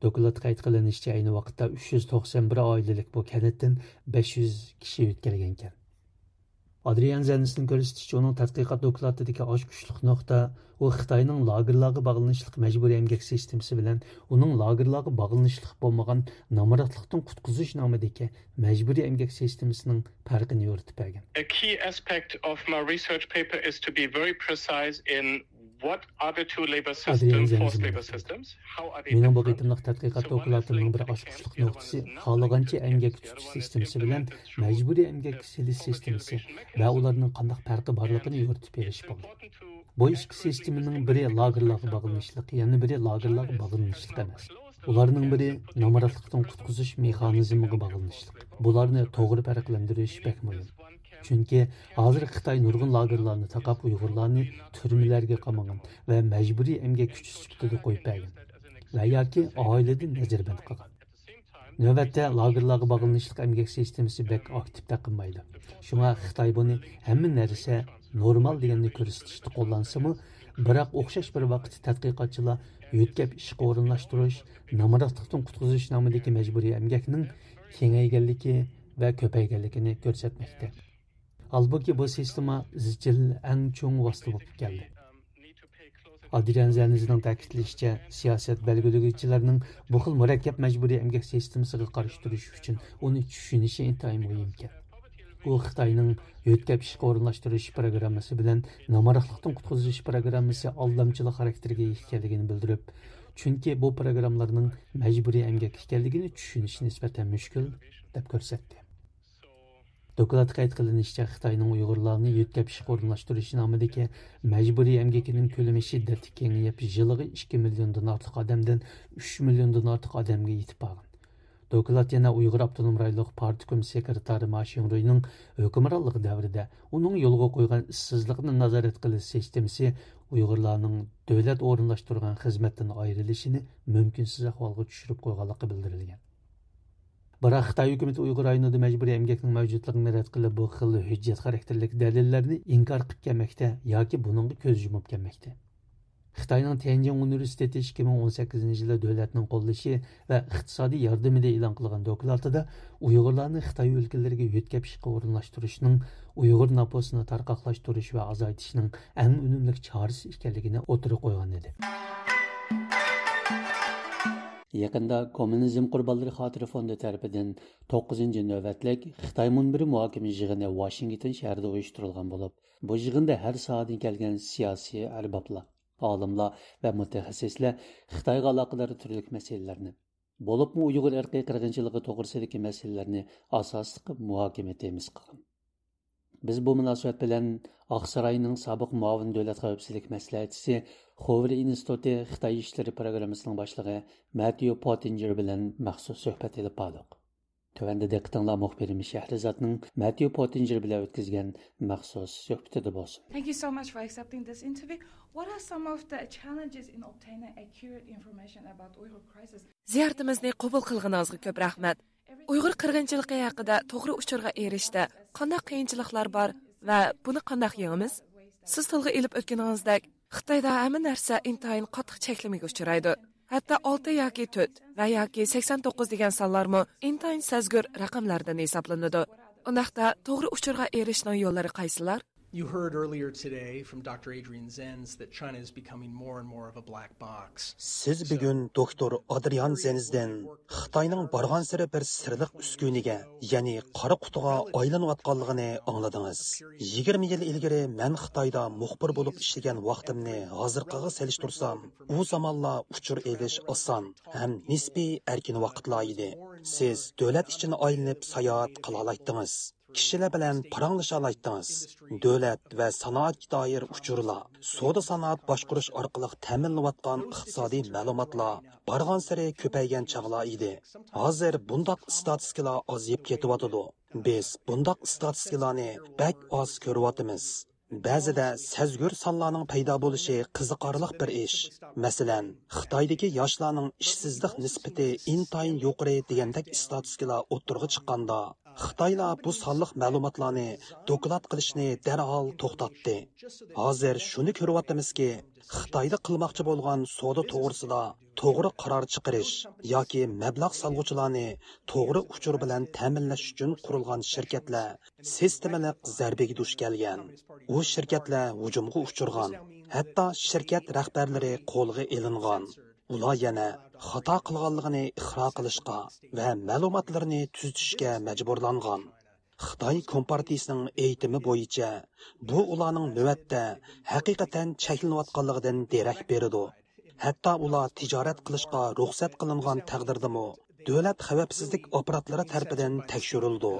دوكلاتتا قەيت قىلىنىشىچە، ئەينى ۋاقىتتا ئۈچ يۈز توقسان بىر ئائىلىلىك بۇ كەنتتىن بەش يۈز كىشى يۆتكەلگەنىكەن. ئادرىيان زەننىسنىڭ كۆرسىتىشىچە، ئۇنىڭ تەتقىقات دوكلاتىدىكى ئاچقۇچلۇق نۇقتا، ئۇ خىتاينىڭ لاگېرلارغا باغلىنىشلىق مەجبۇرىي ئەمگەك سىستېمىسى بىلەن ئۇنىڭ لاگېرلارغا باغلىنىشلىق بولمىغان نامراتلىقتىن قۇتقۇزۇش نامىدىكى مەجبۇرىي ئەمگەك سىستېمىسىنىڭ پەرقىنى يورۇتۇپ بەرگەن. A key aspect of my research paper is to be very precise in what are the two labor ئادرىيان systems, زەننىس forced labor مۇنداق دەيدۇ. Systems, how are they مېنىڭ بۇ different? قېتىملىق تەتقىقات دوكلاتىمنىڭ بىر ئاچقۇچلۇق نۇقتىسى خالىغانچە ئەمگەك تۇتۇش سىستېمىسى بىلەن مەجبۇرىي ئەمگەككە سېلىش سىستېمىسى ۋە ئۇلارنىڭ قانداق پەرقى بارلىقىنى يورۇتۇپ بېرىش بولدى. بۇ ئىككى سىستېمىنىڭ بىرى لاگېرلارغا باغلىنىشلىق، يەنە بىرى لاگېرلارغا باغلىنىشلىق ئەمەس. ئۇلارنىڭ بىرى نامراتلىقتىن قۇتقۇزۇش مېخانىزمىغا باغلىنىشلىق. بۇلارنى توغرا پەرقلەندۈرۈش بەك مۇھىم. چۈنكى ھازىر خىتاي نۇرغۇن لاگېرلارنى تاقاپ، ئۇيغۇرلارنى تۈرمىلەرگە قامىغان ۋە مەجبۇرىي ئەمگەك كۈچى سۈپىتىدە قويۇپ بەرگەن ۋە ياكى ئائىلىدىن نەزەربەند قىلغان. نۆۋەتتە لاگېرلارغا باغلىنىشلىق ئەمگەك سىستېمىسى بەك ئاكتىپ تەقىنمايدۇ. شۇڭا خىتاي بۇنى ھەممە نەرسە نورمال دېگەننى كۆرسىتىشتە قوللانسىمۇ، بىراق ئوخشاش بىر ۋاقىتتا تەتقىقاتچىلار يۆتكەپ ئىشقا ئورۇنلاشتۇرۇش، نامراتلىقتىن قۇتقۇزۇش نامىدىكى مەجبۇرىي ئەمگەكنىڭ كېڭەيگەنلىكى ۋە كۆپەيگەنلىكىنى كۆرسەتمەكتە. ھالبۇكى، بۇ سىستېما ئىزچىل ئەڭ چوڭ ۋاسىتە بولۇپ كەلدى. ئادرىيان زەننىسنىڭ تەكىتلىشىچە، سىياسەت بەلگىلىگۈچىلەرنىڭ بۇ خىل مۇرەككەپ مەجبۇرىي ئەمگەك سىستېمىسىغا قارشى تۇرۇش ئۈچۈن ئۇنى چۈشىنىشى ئىنتايىن مۇھىمكەن. ئۇ خىتاينىڭ يۆتكەپ ئىشقا ئورۇنلاشتۇرۇش پىروگراممىسى بىلەن نامراتلىقتىن قۇتقۇزۇش پىروگراممىسى ئالدامچىلىق خاراكتېرىگە ئىگە ئىكەنلىكىنى بىلدۈرۈپ، چۈنكى بۇ پىروگراممىلارنىڭ مەجبۇرىي ئەمگەك ئىكەنلىكىنى چۈشىنىش نىسبەتەن مۈشكۈل، دەپ كۆرسەتتى. دوكلاتتا قەيت قىلىنىشىچە، خىتاينىڭ ئۇيغۇرلارنى يۆتكەپ ئىشقا ئورۇنلاشتۇرۇش نامىدىكى مەجبۇرىي ئەمگىكىنىڭ كۆلىمى شىددەتلىك كېڭىيىپ، يىلىغا ئىككى مىليوندىن ئارتۇق ئادەمدىن ئۈچ مىليوندىن ئارتۇق ئادەمگە يېتىپ بارغان. دوكلات يەنە ئۇيغۇر ئاپتونوم رايونلۇق پارتكوم سېكرېتارى ما شىڭرۇينىڭ ھۆكۈمرانلىقى دەۋرىدە ئۇنىڭ يولغا قويغان ئىشسىزلىقنى نازارەت قىلىش سىستېمىسى ئۇيغۇرلارنىڭ دۆلەت ئورۇنلاشتۇرغان خىزمەتتىن ئايرىلىشىنى مۇمكىنسىز ئەھۋالغا چۈشۈرۈپ قويغانلىقى بىلدۈرۈلگەن. بىراق خىتاي ھۆكۈمىتى ئۇيغۇر رايونىدا مەجبۇرىي ئەمگەكنىڭ مەۋجۇتلۇقىنى رەت قىلىپ، بۇ خىل ھۆججەت خاراكتېرلىك دەلىللەرنى ئىنكار قىلىپ كەلمەكتە ياكى بۇنىڭغا كۆز يۇمۇپ كەلمەكتە. خىتاينىڭ تيەنجىن ئۇنىۋېرسىتېتى ئىككى مىڭ ئون سەككىزىنچى يىلى دۆلەتنىڭ قوللىشى ۋە ئىقتىسادىي ياردىمىدە ئېلان قىلغان دوكلاتىدا ئۇيغۇرلارنى خىتاي ئۆلكىلىرىگە يۆتكەپ ئىشقا ئورۇنلاشتۇرۇشنىڭ ئۇيغۇر نوپۇسىنى تارقاقلاشتۇرۇش ۋە ئازايتىشنىڭ ئەڭ ئۈنۈملۈك چارىسى ئىكەنلىكىنى ئوتتۇرىغا قويغان ئىدى. يېقىندا كوممۇنىزم قۇربانلىرى خاتىرە فوندى تەرىپىدىن توققۇزىنچى نۆۋەتلىك خىتاي مۇنبىرى مۇھاكىمە يىغىنى ۋاشىنگتون شەھىرىدە ئۇيۇشتۇرۇلغان بولۇپ، بۇ يىغىندا ھەر ساھەدىن كەلگەن سىياسىي ئەربابلار، ئالىملار ۋە مۇتەخەسسىسلەر خىتايغا ئالاقىدار تۈرلۈك مەسىلىلەرنى، بولۇپمۇ ئۇيغۇر ئىرقىي قىرغىنچىلىقى توغرىسىدىكى مەسىلىلەرنى ئاساسلىق مۇھاكىمە تېمىسى قىلغان. بىز بۇ مۇناسىۋەت بىلەن ئاقساراينىڭ سابىق مۇئاۋىن دۆلەت خەۋپسىزلىك مەسلىھەتچىسى، خوۋېر ئىنستىتۇتى خىتاي ئىشلىرى پروگراممىسىنىڭ باشلىقى مەتيۇ پوتتىنجېر بىلەن مەخسۇس سۆھبەت ئېلىپ باردۇق. تۆۋەندە دىققىتىڭلار مۇخبىرىمىز شەھرىزادنىڭ مەتيۇ پوتتىنجېر بىلەن ئۆتكۈزگەن مەخسۇس سۆھبىتىدە بولسۇن. Thank you so much for accepting this interview. What are some of the challenges in obtaining accurate information about Uyghur crisis? زىيارىتىمىزنى قوبۇل قىلغىنىڭىزغا كۆپ رەھمەت. ئۇيغۇر قىرغىنچىلىقى ھەققىدە توغرا ئۇچۇرغا ئېرىشىشتە قانداق قىيىنچىلىقلار بار ۋە بۇنى قانداق يېڭىمىز؟ سىز تىلغا ئېلىپ ئۆتكىنىڭىزدەك، خىتايدا ھەممە نەرسە ئىنتايىن قاتتىق چەكلىمىگە ئۇچرايدۇ. ھەتتا ئالتە ياكى تۆت ۋە ياكى سەكسەن توققۇز دېگەن سانلارمۇ ئىنتايىن سەزگۈر رەقەملەردىن ھېسابلىنىدۇ. ئۇنداقتا توغرا ئۇچۇرغا ئېرىشىشنىڭ يوللىرى قايسىلار؟ You heard earlier today from Doctor Adrian Zenz that China is becoming more and more of a black box. سىز بۈگۈن دوكتور ئادرىيان زېنزدىن خىتاينىڭ بارغانسېرى بىر سىرلىق ئۈسكۈنىگە، يەنى قارا قۇتىغا ئايلىنىۋاتقانلىقىنى ئاڭلىدىڭىز. يىگىرمە يىل ئىلگىرى مەن خىتايدا مۇخبىر بولۇپ ئىشلىگەن ۋاقتىمنى ھازىرقىغا سېلىشتۇرسام، ئۇ زامانلار ئۇچۇر ئېلىش ئاسان ھەم نىسپىي ئەركىن ۋاقىتلار ئىدى. سىز دۆلەت ئىچىنى ئايلىنىپ ساياھەت قىلالايتتىڭىز. كىشىلەر بىلەن پاراڭلىشالايتتىڭىز. دۆلەت ۋە سانائەتكە دائىر ئۇچۇرلار، سودا سانائەت باشقۇرۇش ئارقىلىق تەمىنلىنىۋاتقان ئىقتىسادىي مەلۇماتلار بارغانسېرى كۆپەيگەن چاغلار ئىدى. ھازىر بۇنداق ئىستاتىستىكىلار ئازىيىپ كېتىۋاتىدۇ. بىز بۇنداق ئىستاتىستىكىلارنى بەك ئاز كۆرۈۋاتىمىز. بەزىدە سەزگۈر سانلارنىڭ پەيدا بولۇشى قىزىقارلىق بىر ئىش. مەسىلەن، خىتايدىكى ياشلارنىڭ ئىشسىزلىق نىسبىتى ئىنتايىن يۇقىرى دېگەندەك ئىستاتىستىكىلار ئوتتۇرىغا چىققاندا، خىتايلار بۇ سانلىق مەلۇماتلارنى دوكلات قىلىشنى دەرھال توختاتتى. ھازىر شۇنى كۆرۈۋاتىمىزكى، خىتايدا قىلماقچى بولغان سودا توغرىسىدا توغرا قارار چىقىرىش ياكى مەبلەغ سالغۇچىلارنى توغرا ئۇچۇر بىلەن تەمىنلەش ئۈچۈن قۇرۇلغان شىركەتلەر سىستېمىلىق زەربىگە دۇچ كەلگەن. ئۇ شىركەتلەر ھۇجۇمغا ئۇچرىغان، ھەتتا شىركەت رەھبەرلىرى قولغا ئېلىنغان. ئۇلار يەنە خاتا قىلغانلىقىنى ئىقرار قىلىشقا ۋە مەلۇماتلىرىنى تۈزىتىشكە مەجبۇرلانغان. خىتاي كومپارتىيىسىنىڭ ئېيتىمى بويىچە، بۇ ئۇلارنىڭ نۆۋەتتە ھەقىقەتەن چەكلىنىۋاتقانلىقىدىن دېرەك بېرىدۇ. ھەتتا ئۇلار تىجارەت قىلىشقا رۇخسەت قىلىنغان تەقدىردىمۇ، دۆلەت خەۋپسىزلىك ئاپپاراتلىرى تەرىپىدىن تەكشۈرۈلىدۇ.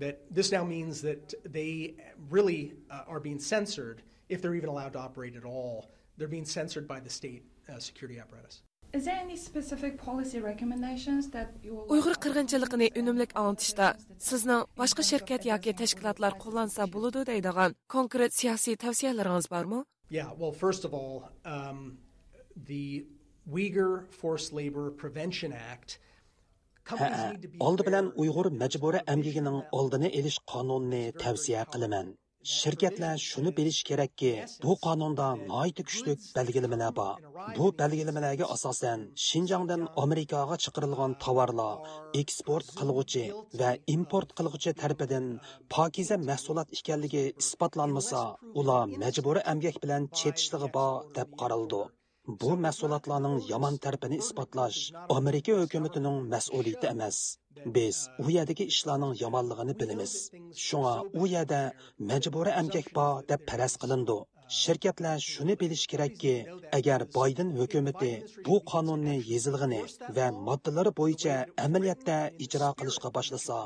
That this now means that they really, uh, are being censored if they're even allowed to operate at all. They're being censored by the state, uh, security apparatus. Is there any specific policy recommendations that you would like ئۇيغۇر قىرغىنچىلىقىنى ئۈنۈملۈك ئاڭلىتىشتا سىزنىڭ باشقا شىركەت ياكى تەشكىلاتلار قوللانسا بولىدۇ دەيدىغان كونكرېت سىياسىي تەۋسىيەلىرىڭىز بارمۇ؟ Yeah, well, first of all, um, the Uyghur Forced Labor Prevention Act. ھەئە، ئالدى بىلەن ئۇيغۇر مەجبۇرىي ئەمگىكىنىڭ ئالدىنى ئېلىش قانۇنىنى تەۋسىيە قىلىمەن. شىركەتلەر شۇنى بىلىشى كېرەككى، بۇ قانۇندا ناھايىتى كۈچلۈك بەلگىلىمىلەر بار. بۇ بەلگىلىمىلەرگە ئاساسەن، شىنجاڭدىن ئامېرىكاغا چىقىرىلغان تاۋارلار ئېكسپورت قىلغۇچى ۋە ئىمپورت قىلغۇچى تەرىپىدىن پاكىزە مەھسۇلات ئىكەنلىكى ئىسپاتلانمىسا، ئۇلار مەجبۇرىي ئەمگەك بىلەن چېتىشلىقى بار دەپ قارىلىدۇ. بۇ مەھسۇلاتلارنىڭ يامان تەرىپىنى ئىسپاتلاش ئامېرىكا ھۆكۈمىتىنىڭ مەسئۇلىيىتى ئەمەس. بىز ئۇ يەردىكى ئىشلارنىڭ يامانلىقىنى بىلىمىز. شۇڭا ئۇ يەردە مەجبۇرىي ئەمگەك بار دەپ پەرەز قىلىنىدۇ. شىركەتلەر شۇنى بىلىشى كېرەككى، ئەگەر بايدېن ھۆكۈمىتى بۇ قانۇننى يېزىلغىنى ۋە ماددىلىرى بويىچە ئەمەلىيەتتە ئىجرا قىلىشقا باشلىسا،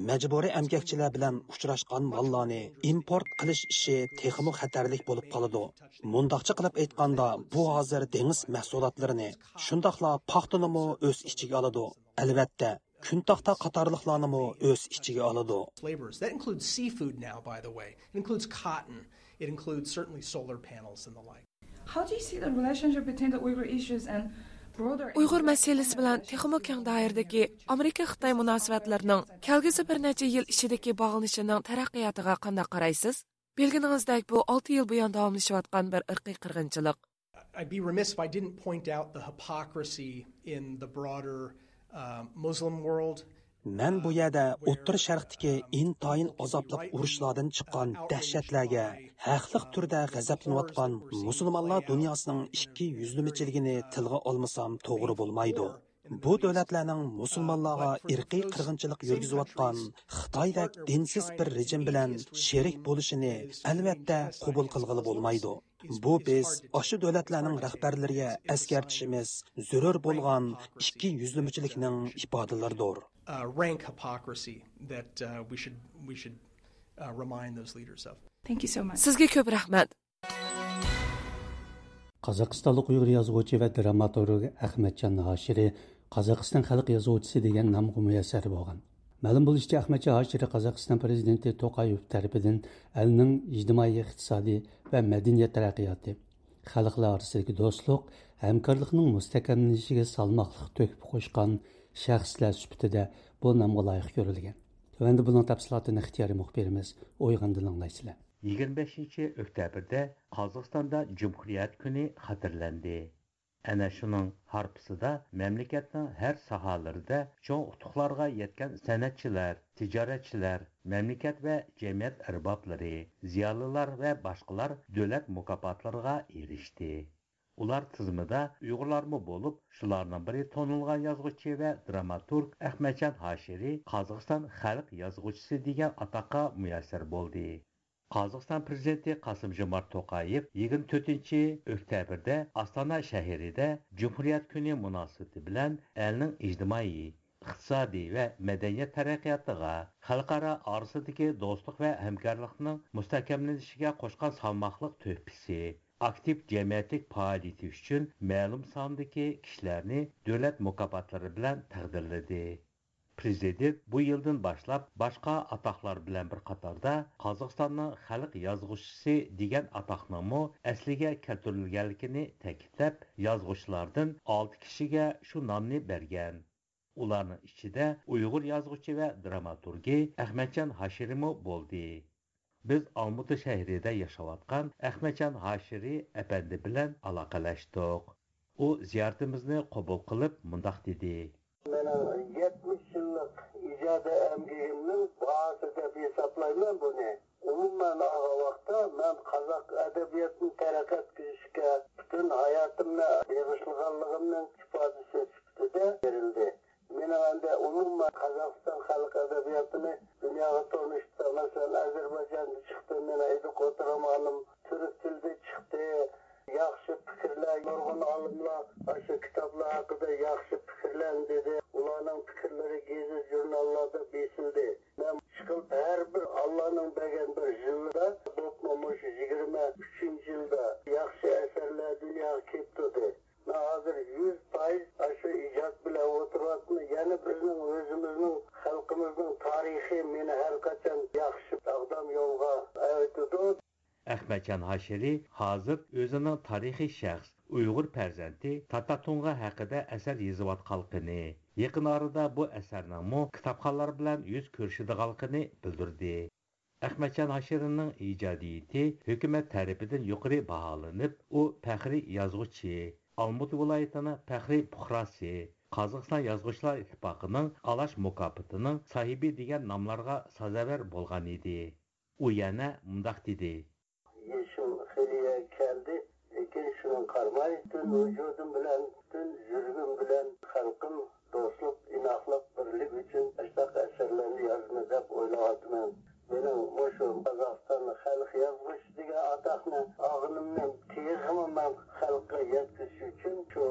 مەجبۇرىي ئەمگەكچىلەر بىلەن ئۇچراشقان ماللارنى ئىمپورت قىلىش ئىشى تېخىمۇ خەتەرلىك بولۇپ قالىدۇ. مۇنداقچە قىلىپ ئېيتقاندا، بۇ ھازىر دېڭىز مەھسۇلاتلىرىنى، شۇنداقلا پاختىنىمۇ ئۆز ئىچىگە ئالىدۇ. ئەلۋەتتە، كۈنتاختا قاتارلىقلارنىمۇ ئۆز ئىچىگە ئالىدۇ. Flavors. That includes seafood now, by the way. It includes cotton. It includes certainly solar panels and the like. How do you see the relationship between the Uyghur issues and broader ئۇيغۇر مەسىلىسى بىلەن تېخىمۇ كەڭ دائىرىدىكى ئامېرىكا-خىتاي مۇناسىۋەتلىرىنىڭ كەلگۈسى بىر نەچچە يىل ئىچىدىكى باغلىنىشىنىڭ تەرەققىياتىغا قانداق قارايسىز؟ بىلگىنىڭىزدەك، بۇ ئالتە يىل بۇيان داۋاملىشىۋاتقان بىر ئىرقىي قىرغىنچىلىق. I'd be remiss if I didn't point out the hypocrisy in the broader uh, Muslim world. مەن بۇ يەردە ئوتتۇرا شەرقتىكى ئىنتايىن ئازابلىق ئۇرۇشلاردىن چىققان دەھشەتلەرگە ھەقلىق تۈردە غەزەپلىنىۋاتقان مۇسۇلمانلار دۇنياسىنىڭ ئىككى يۈزلىمىچىلىكىنى تىلغا ئالمىسام توغرا بولمايدۇ. بۇ دۆلەتلەرنىڭ مۇسۇلمانلارغا ئىرقىي قىرغىنچىلىق يۈرگۈزۈۋاتقان خىتايدەك دىنسىز بىر رېجىم بىلەن شېرىك بولۇشىنى ئەلۋەتتە قوبۇل قىلغىلى بولمايدۇ. بۇ بىز ئاشۇ دۆلەتلەرنىڭ رەھبەرلىرىگە ئەسكەرتىشىمىز زۆرۈر بولغان ئىككى يۈزلىمىچىلىكنىڭ ئىپادىلىرىدۇر. Uh, rank hypocrisy that uh, we should we should uh, remind those leaders of. Thank you so much. سىزگە كۆپ رەھمەت. قازاقىستانلىق ئۇيغۇر يازغۇچى ۋە دراماتورگ ئەخمەتجان ھاشىرى قازاقىستان خەلق يازغۇچىسى دېگەن نامغا مۇيەسسەر بولغان. مەلۇم بولۇشىچە، ئەخمەتجان ھاشىرى قازاقىستان پىرېزىدېنتى توقايېۋ تەرىپىدىن ئەلنىڭ ئىجتىمائىي، ئىقتىسادىي ۋە مەدەنىيەت تەرەققىياتى، خەلقلەر ئارىسىدىكى دوستلۇق، ھەمكارلىقنىڭ مۇستەھكەملىنىشىگە سالماقلىق تۆھپە قوشقان شەخسلەر سۈپىتىدە بۇ نامغا لايىق كۆرۈلگەن. تۆۋەندە بۇنىڭ تەپسىلاتىنى ئىختىيارىي مۇخبىرىمىز ئويغاندىن ئاڭلايسىلەر. يىگىرمە بەشىنچى ئۆكتەبىردە قازاقىستاندا جۇمھۇرىيەت كۈنى خاتىرىلەندى. ئەنە شۇنىڭ ھارپىسىدا مەملىكەتنىڭ ھەر ساھەلىرىدە چوڭ ئۇتۇقلارغا يەتكەن سەنئەتچىلەر، تىجارەتچىلەر، مەملىكەت ۋە جەمئىيەت ئەربابلىرى، زىيالىيلار ۋە باشقىلار دۆلەت مۇكاپاتلىرىغا ئېرىشتى. ئۇلار تىزىمىدا ئۇيغۇرلارمۇ بولۇپ، شۇلارنىڭ بىرى تونۇلغان يازغۇچى ۋە دراماتورگ ئەخمەتجان ھاشىرى قازاقىستان خەلق يازغۇچىسى دېگەن ئاتاققا مۇيەسسەر بولدى. قازاقىستان پىرېزىدېنتى قاسىم جومارت توقايېۋ يىگىرمە تۆتىنچى ئۆكتەبىردە ئاستانا شەھىرىدە جۇمھۇرىيەت كۈنى مۇناسىۋىتى بىلەن ئەلنىڭ ئىجتىمائىي، ئىقتىسادىي ۋە مەدەنىيەت تەرەققىياتىغا، خەلقئارا ئارىسىدىكى دوستلۇق ۋە ھەمكارلىقنىڭ مۇستەھكەملىنىشىگە قوشقان سالماقلىق تۆھپىسى، ئاكتىپ جەمئىيەتلىك پائالىيىتى ئۈچۈن مەلۇم ساندىكى كىشىلەرنى دۆلەت مۇكاپاتلىرى بىلەن تەقدىرلىدى. پىرېزىدېنت بۇ يىلدىن باشلاپ باشقا ئاتاقلار بىلەن بىر قاتاردا قازاقىستاننىڭ خەلق يازغۇچىسى دېگەن ئاتاقنىڭمۇ ئەسلىگە كەلتۈرۈلگەنلىكىنى تەكىتلەپ، يازغۇچىلاردىن ئالتە كىشىگە شۇ نامنى بەرگەن. ئۇلارنىڭ ئىچىدە ئۇيغۇر يازغۇچى ۋە دراماتورگى ئەخمەتجان ھاشىرىمۇ بولدى. بىز ئالمۇتا شەھىرىدە ياشاۋاتقان ئەخمەتجان ھاشىرى ئەپەندى بىلەن ئالاقىلەشتۇق. ئۇ زىيارىتىمىزنى قوبۇل قىلىپ مۇنداق دېدى. مېنىڭ يەتمىش يىللىق ئىجادىي ئەمگىكىمنىڭ باھاسى دەپ ھېسابلايمەن بۇنى. ئومۇمەن ئالغان ۋاقىتتا، مەن قازاق ئەدەبىياتىنى تەرەققىي ئەتكۈزۈشكە پۈتۈن ھاياتىمنى بېغىشلىغانلىقىمنىڭ ئىپادىسى سۈپىتىدە بېرىلدى. مېنىڭ ئەمدى ئومۇمەن قازاقىستان خەلق ئەدەبىياتىنى دۇنياغا تونۇشتا، مەسىلەن، ئەزەربەيجاندا چىقتى، مېنىڭ ئىدىقۇت رومانىم تۈرك تىلىدا چىقتى. ياخشى پىكىرلەر، نۇرغۇن ئالىملار ئاشۇ كىتابلار ھەققىدە ياخشى پىكىرلەرنى دېدى. ئۇلارنىڭ پىكىرلىرى گېزىت-ژۇرناللاردا بېسىلدى. مەن ئىشقىلىپ ھەر بىر ئاللانىڭ بەرگەن بىر يىلىدا، بولۇپمۇ مۇشۇ يىگىرمە ئۈچىنچى يىلدا ياخشى ئەسەرلەر دۇنياغا كېلىپ تۇردى. مەن ھازىر يۈز پايىز ئاشۇ ئىجاد بىلەن ئولتۇرۇۋاتىمەن. يەنە بىزنىڭ ئۆزىمىزنىڭ خەلقىمىزنىڭ تارىخى مېنى ھەر قاچان ياخشى ساغدام يولغا ئەۋېتىدۇ. ئەخمەتجان ھاشىرى ھازىر ئۆزىنىڭ تارىخىي شەخس، ئۇيغۇر پەرزەنتى تاتا تۇڭغا ھەققىدە ئەسەر يېزىۋاتقانلىقىنى، يېقىن ئارىدا بۇ ئەسەرنىڭمۇ كىتابخانلار بىلەن يۈز كۆرۈشىدىغانلىقىنى بىلدۈردى. ئەخمەتجان ھاشىرىنىڭ ئىجادىيىتى ھۆكۈمەت تەرىپىدىن يۇقىرى باھالىنىپ، ئۇ پەخرىي يازغۇچى، ئالمۇتا ۋىلايىتىنىڭ پەخرىي پۇقراسى، قازاقىستان يازغۇچىلار ئىتتىپاقىنىڭ ئالاش مۇكاپاتىنىڭ ساھىبى دېگەن ناملارغا سازاۋەر بولغان ئىدى. ئۇ يەنە مۇنداق دېدى. يېشىم خېلى يەرگە كەلدى، لېكىن شۇنىڭغا قارىماي، پۈتۈن ۋۇجۇدۇم بىلەن، پۈتۈن يۈرىكىم بىلەن خەلقىم دوستلۇق، ئىناقلىق، بىرلىك ئۈچۈن ئاشۇنداق ئەسەرلەرنى يازىمەن دەپ ئويلاۋاتىمەن. مېنىڭ مۇشۇ قازاقىستاندا خەلق يازغۇچىسى دېگەن ئاتاقنى ئالغىنىمنى تېخىمۇ مەن خەلققە يەتكۈزۈش ئۈچۈن شۇ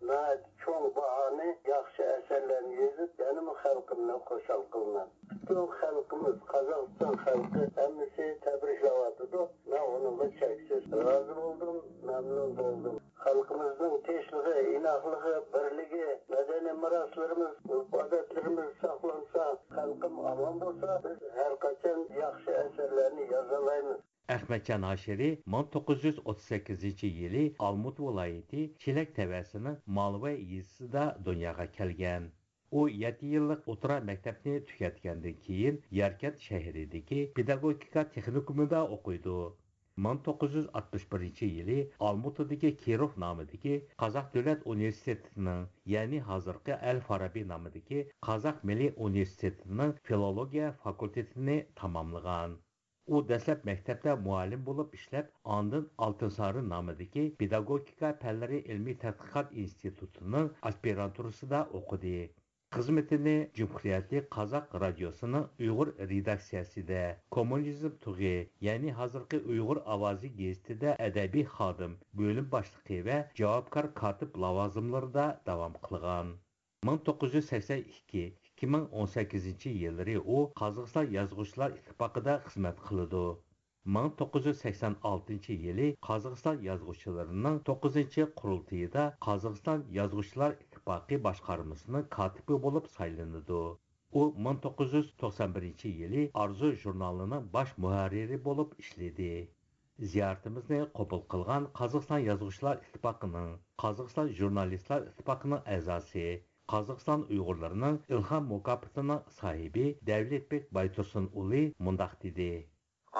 ناھايىتى چوڭ باھانى، ياخشى ئەسەرلەرنى يېزىپ، يەنىمۇ خەلقىمنى خۇشال قىلىمەن. پۈتۈن خەلقىمىز، قازاقىستان خەلقى ھەممىسى تەبرىكلەۋاتىدۇ. مەن ئۇنىڭغا چەكسىز رازى بولدۇم، مەمنۇن بولدۇم. خەلقىمىزنىڭ تىنچلىقى، ئىناقلىقى، بىرلىكى، مەدەنىي مىراسلىرىمىز، ئۆرپ-ئادەتلىرىمىز ساقلانسا، خەلقىم ئامان بولسا، بىز ھەرقاچان ياخشى ئەسەرلەرنى يازالايمىز. ئەخمەتجان ھاشىرى مىڭ توققۇز يۈز ئوتتۇز سەككىزىنچى يىلى ئالمۇتا ۋىلايىتى چېلەك تەۋەسىنىڭ مالۋاي يېزىسىدا دۇنياغا كەلگەن. ئۇ يەتتە يىللىق ئوتتۇرا مەكتەپنى تۈگەتكەندىن كېيىن، ياركەنت شەھىرىدىكى پېداگوگىكا تېخنىكومىدا ئوقۇيدۇ. مىڭ توققۇز يۈز ئاتمىش بىرىنچى يىلى ئالمۇتىدىكى كىروف نامىدىكى قازاق دۆلەت ئۇنىۋېرسىتېتىنىڭ، يەنى ھازىرقى ئەل فارابى نامىدىكى قازاق مىللىي ئۇنىۋېرسىتېتىنىڭ فىلولوگىيە فاكۇلتېتىنى تاماملىغان. ئۇ دەسلەپ مەكتەپتە مۇئەللىم بولۇپ ئىشلەپ، ئاندىن ئالتىنسارىن نامىدىكى پېداگوگىكا پەنلىرى ئىلمىي تەتقىقات ئىنستىتۇتىنىڭ ئاسپىرانتۇرىسىدا ئوقۇدى. خىزمىتىنى جۇمھۇرىيەتلىك قازاق رادىيوسىنىڭ ئۇيغۇر رېداكسىيەسىدە، كوممۇنىزم تۇغى، يەنى ھازىرقى ئۇيغۇر ئاۋازى گېزىتىدە ئەدەبىي خادىم، بۆلۈم باشلىقى ۋە جاۋابكار كاتىپ لاۋازىملىرىدا داۋام قىلغان. مىڭ توققۇز يۈز سەكسەن ئىككى، ئىككى مىڭ ئون سەككىزىنچى يىللىرى ئۇ قازاقىستان يازغۇچىلار ئىتتىپاقىدا خىزمەت قىلىدۇ. مىڭ توققۇز يۈز سەكسەن ئالتىنچى يىلى قازاقىستان يازغۇچىلىرىنىڭ توققۇزىنچى قۇرۇلتىيىدا قازاقىستان يازغۇچىلار ئىتتىپاقى باشقارمىسىنىڭ كاتىپى بولۇپ سايلىنىدۇ. ئۇ مىڭ توققۇز يۈز توقسان بىرىنچى يىلى ئارزۇ ژۇرنالىنىڭ باش مۇھەررىرى بولۇپ ئىشلىدى. زىيارىتىمىزنى قوبۇل قىلغان قازاقىستان يازغۇچىلار ئىتتىپاقىنىڭ، قازاقىستان ژۇرنالىستلار ئىتتىپاقىنىڭ ئەزاسى، قازاقىستان ئۇيغۇرلىرىنىڭ ئىلھام مۇكاپاتىنىڭ ساھىبى دەۋلەتبېك بايتۇرسۇن ئۇلى مۇنداق دېدى.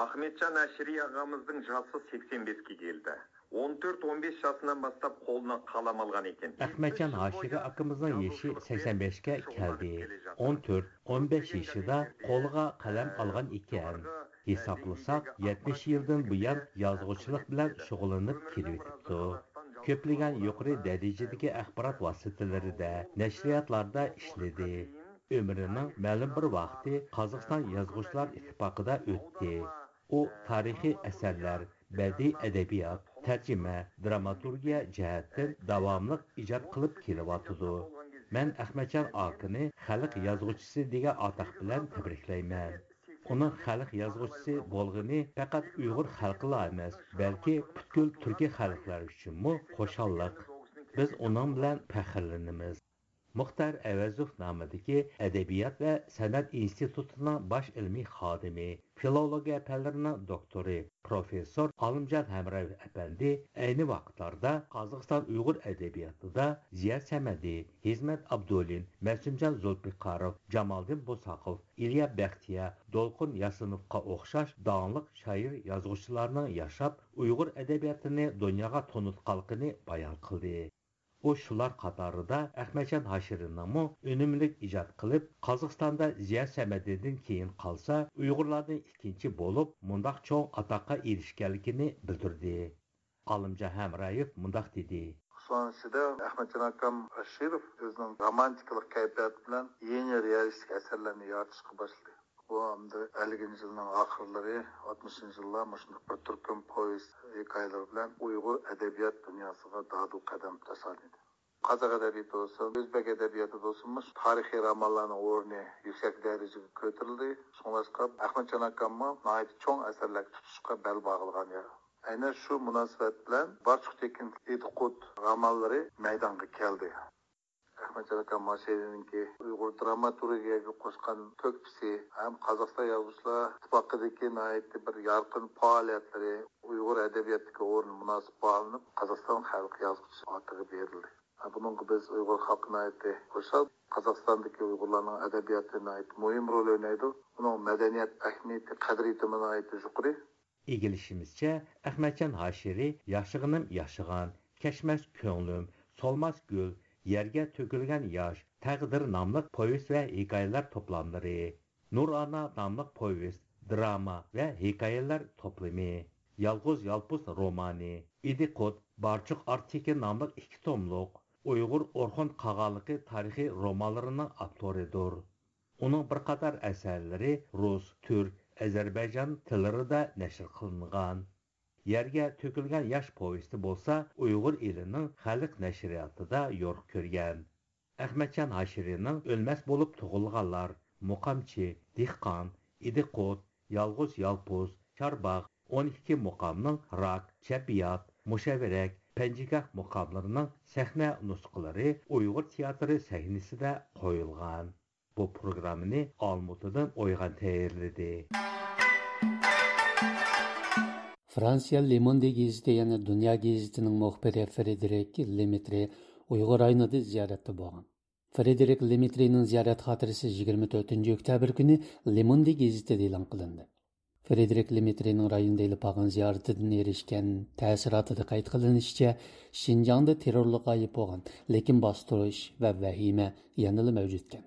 ئەخمەتجان ھاشىرى ئاغامىزنىڭ ياشى سەكسەن بەشكە كەلدى. ئون تۆت، ئون بەش ياشىدىن باشلاپ قولىنا قەلەم ئالغان ئىكەن. ئەخمەتجان ھاشىرى ئاكىمىزنىڭ يېشى سەكسەن بەشكە كەلدى. ئون تۆت، ئون بەش يېشىدا قولىغا قەلەم ئالغان ئىكەن. ھېسابلىساق، يەتمىش يىلدىن بۇيان يازغۇچىلىق بىلەن شۇغۇللىنىپ كېلىۋېتىپتۇ. كۆپلىگەن يۇقىرى دەرىجىدىكى ئاخبارات ۋاسىتىلىرىدە، نەشرىياتلاردا ئىشلىدى. ئۆمرىنىڭ مەلۇم بىر ۋاقتى قازاقىستان يازغۇچىلار ئىتتىپاقىدا ئۆتتى. ئۇ تارىخىي ئەسەرلەر، بەدىئىي ئەدەبىيات، تەرجىمە، دراماتورگىيە جەھەتتىن داۋاملىق ئىجاد قىلىپ كېلىۋاتىدۇ. مەن ئەخمەتجان ئاكىنى خەلق يازغۇچىسى دېگەن ئاتاق بىلەن تەبرىكلەيمەن. ئۇنىڭ خەلق يازغۇچىسى بولغىنى پەقەت ئۇيغۇر خەلقىلا ئەمەس، بەلكى پۈتكۈل تۈركىي خەلقلەر ئۈچۈنمۇ خۇشاللىق. بىز ئۇنىڭ بىلەن پەخىرلىنىمىز. مۇختار ئەۋەزوف نامىدىكى ئەدەبىيات ۋە سەنئەت ئىنستىتۇتىنىڭ باش ئىلمىي خادىمى، فىلولوگىيە پەنلىرىنىڭ دوكتورى، پروفېسسور ئالىمجان ھەمرايېۋ ئەپەندى ئەينى ۋاقىتلاردا قازاقىستان ئۇيغۇر ئەدەبىياتىدا زىيا سەمەدى، ھىزمەت ئابدۇلىن، مەسۇمجان زۇلپىقاروف، جامالدىن بوساقوف، ئىليا بەختىيار، دولقۇن ياسىنوفقا ئوخشاش داڭلىق شائىر، يازغۇچىلارنىڭ ياشاپ، ئۇيغۇر ئەدەبىياتىنى دۇنياغا تونۇتقانلىقىنى بايان قىلدى. ئۇ شۇلار قاتارىدا ئەخمەتجان ھاشىرىنىڭمۇ ئۈنۈملۈك ئىجاد قىلىپ، قازاقىستاندا زىيا سەمەدىدىن كېيىن قالسا، ئۇيغۇرلاردىن ئىككىنچى بولۇپ، مۇنداق چوڭ ئاتاققا ئېرىشكەنلىكىنى بىلدۈردى. ئالىمجان ھەمرايېۋ مۇنداق دېدى. شۇنىڭ ئىچىدە ئەخمەتجان ئاكام ئاشىروف ئۆزىنىڭ رومانتىكىلىق كەيپىياتى بىلەن يېڭى رېئالىستىك ئەسەرلەرنى يارىتىشقا باشلىدى. بۇ ئەمدى ئەللىكىنچى يىلنىڭ ئاخىرلىرى، ئاتمىشىنچى يىللار مۇشۇنداق بىر تۈركۈم پوۋېست ھېكايىلىرى بىلەن ئۇيغۇر ئەدەبىيات دۇنياسىغا دادىل قەدەم تاشلىدى. قازاق ئەدەبىياتى بولسۇن، ئۆزبەك ئەدەبىياتى بولسۇن، مۇشۇ تارىخىي رومانلارنىڭ ئورنى يۈكسەك دەرىجىگە كۆتۈرۈلدى. شۇڭلاشقا ئەخمەتجان ئاكاممۇ ناھايىتى چوڭ ئەسەرلەرگە تۇتۇشقا بەل باغلىغان يەر. ئەنە شۇ مۇناسىۋەت بىلەن بارچۇق تېكىن ئىدىقۇت رومانلىرى مەيدانغا كەلدى. ئەخمەتجان ئاكام ھاشىرىنىڭكى ئۇيغۇر دراماتورگىيەگە قوشقان تۆھپىسى ھەم قازاقىستان يازغۇچىلار ئىتتىپاقىدىكى ناھايىتى بىر يارقىن پائالىيەتلىرى ئۇيغۇر ئەدەبىياتىدىكى ئورنى مۇناسىب باھالىنىپ، قازاقىستان خەلق يازغۇچىسى ئاتىقى بېرىلدى. بۇنىڭغا بىز ئۇيغۇر خەلقى ناھايىتى خۇشال. قازاقىستاندىكى ئۇيغۇرلارنىڭ ئەدەبىياتى ناھايىتى مۇھىم رول ئوينايدۇ. ئۇنىڭ مەدەنىيەت ئەھمىيىتى، قەدرىيىتىمۇ ناھايىتى يۇقىرى. ئىگىلىشىمىزچە، ئەخمەتجان ھاشىرى ياشىغىنىم ياشىغان، كەچمەس كۆڭلۈم، سولماس گۈل، يەرگە تۆكۈلگەن ياش، تەقدىر ناملىق پوۋېست ۋە ھېكايىلەر توپلاملىرى، نۇرئانا ناملىق پوۋېست، دىراما ۋە ھېكايىلەر توپلىمى، يالغۇز يالپۇز رومانى، ئىدىقۇت، بارچۇق ئارتىكى ناملىق ئىككى توملۇق ئۇيغۇر ئورخۇن قاغانلىقى تارىخىي رومانلىرىنىڭ ئاپتورىدۇر. ئۇنىڭ بىر قاتار ئەسەرلىرى رۇس، تۈرك، ئەزەربەيجان تىللىرىدا نەشر قىلىنغان. يەرگە تۆكۈلگەن ياش پوۋېستى بولسا ئۇيغۇر ئېلىنىڭ خەلق نەشرىياتىدا يورۇق كۆرگەن. ئەخمەتجان ھاشىرىنىڭ ئۆلمەس بولۇپ تۇغۇلغانلار، مۇقامچى، دېھقان، ئىدىقۇت، يالغۇز يالپۇز، چارباغ، ئون ئىككى مۇقامنىڭ راك، چەببىيات، مۇشەۋىرەك، پەنجىگاھ مۇقاملىرىنىڭ سەھنە نۇسخىلىرى ئۇيغۇر تىياتىرى سەھنىسىدە قويۇلغان. بۇ پروگراممىنى ئالمۇتىدىن ئويغان تەييارلىدى. فرانسىيە لېموندې گېزىتى، يەنى دۇنيا گېزىتىنىڭ مۇخبىرى فرېدېرىك لېمېترې ئۇيغۇر رايونىدا زىيارەتتە بولغان. فرېدېرىك لېمېترېنىڭ زىيارەت خاتىرىسى يىگىرمە تۆتىنچى ئۆكتەبىر كۈنى لېموندې گېزىتىدە ئېلان قىلىندى. فرېدېرىك لېمېترىنىڭ رايوندا ئېلىپ بارغان زىيارىتىدىن ئېرىشكەن تەسىراتىدا قەيت قىلىنىشىچە، شىنجاڭدا تېررورلۇق غايىب بولغان، لېكىن باستۇرۇش ۋە ۋەھىمە يەنىلا مەۋجۇت ئىكەن.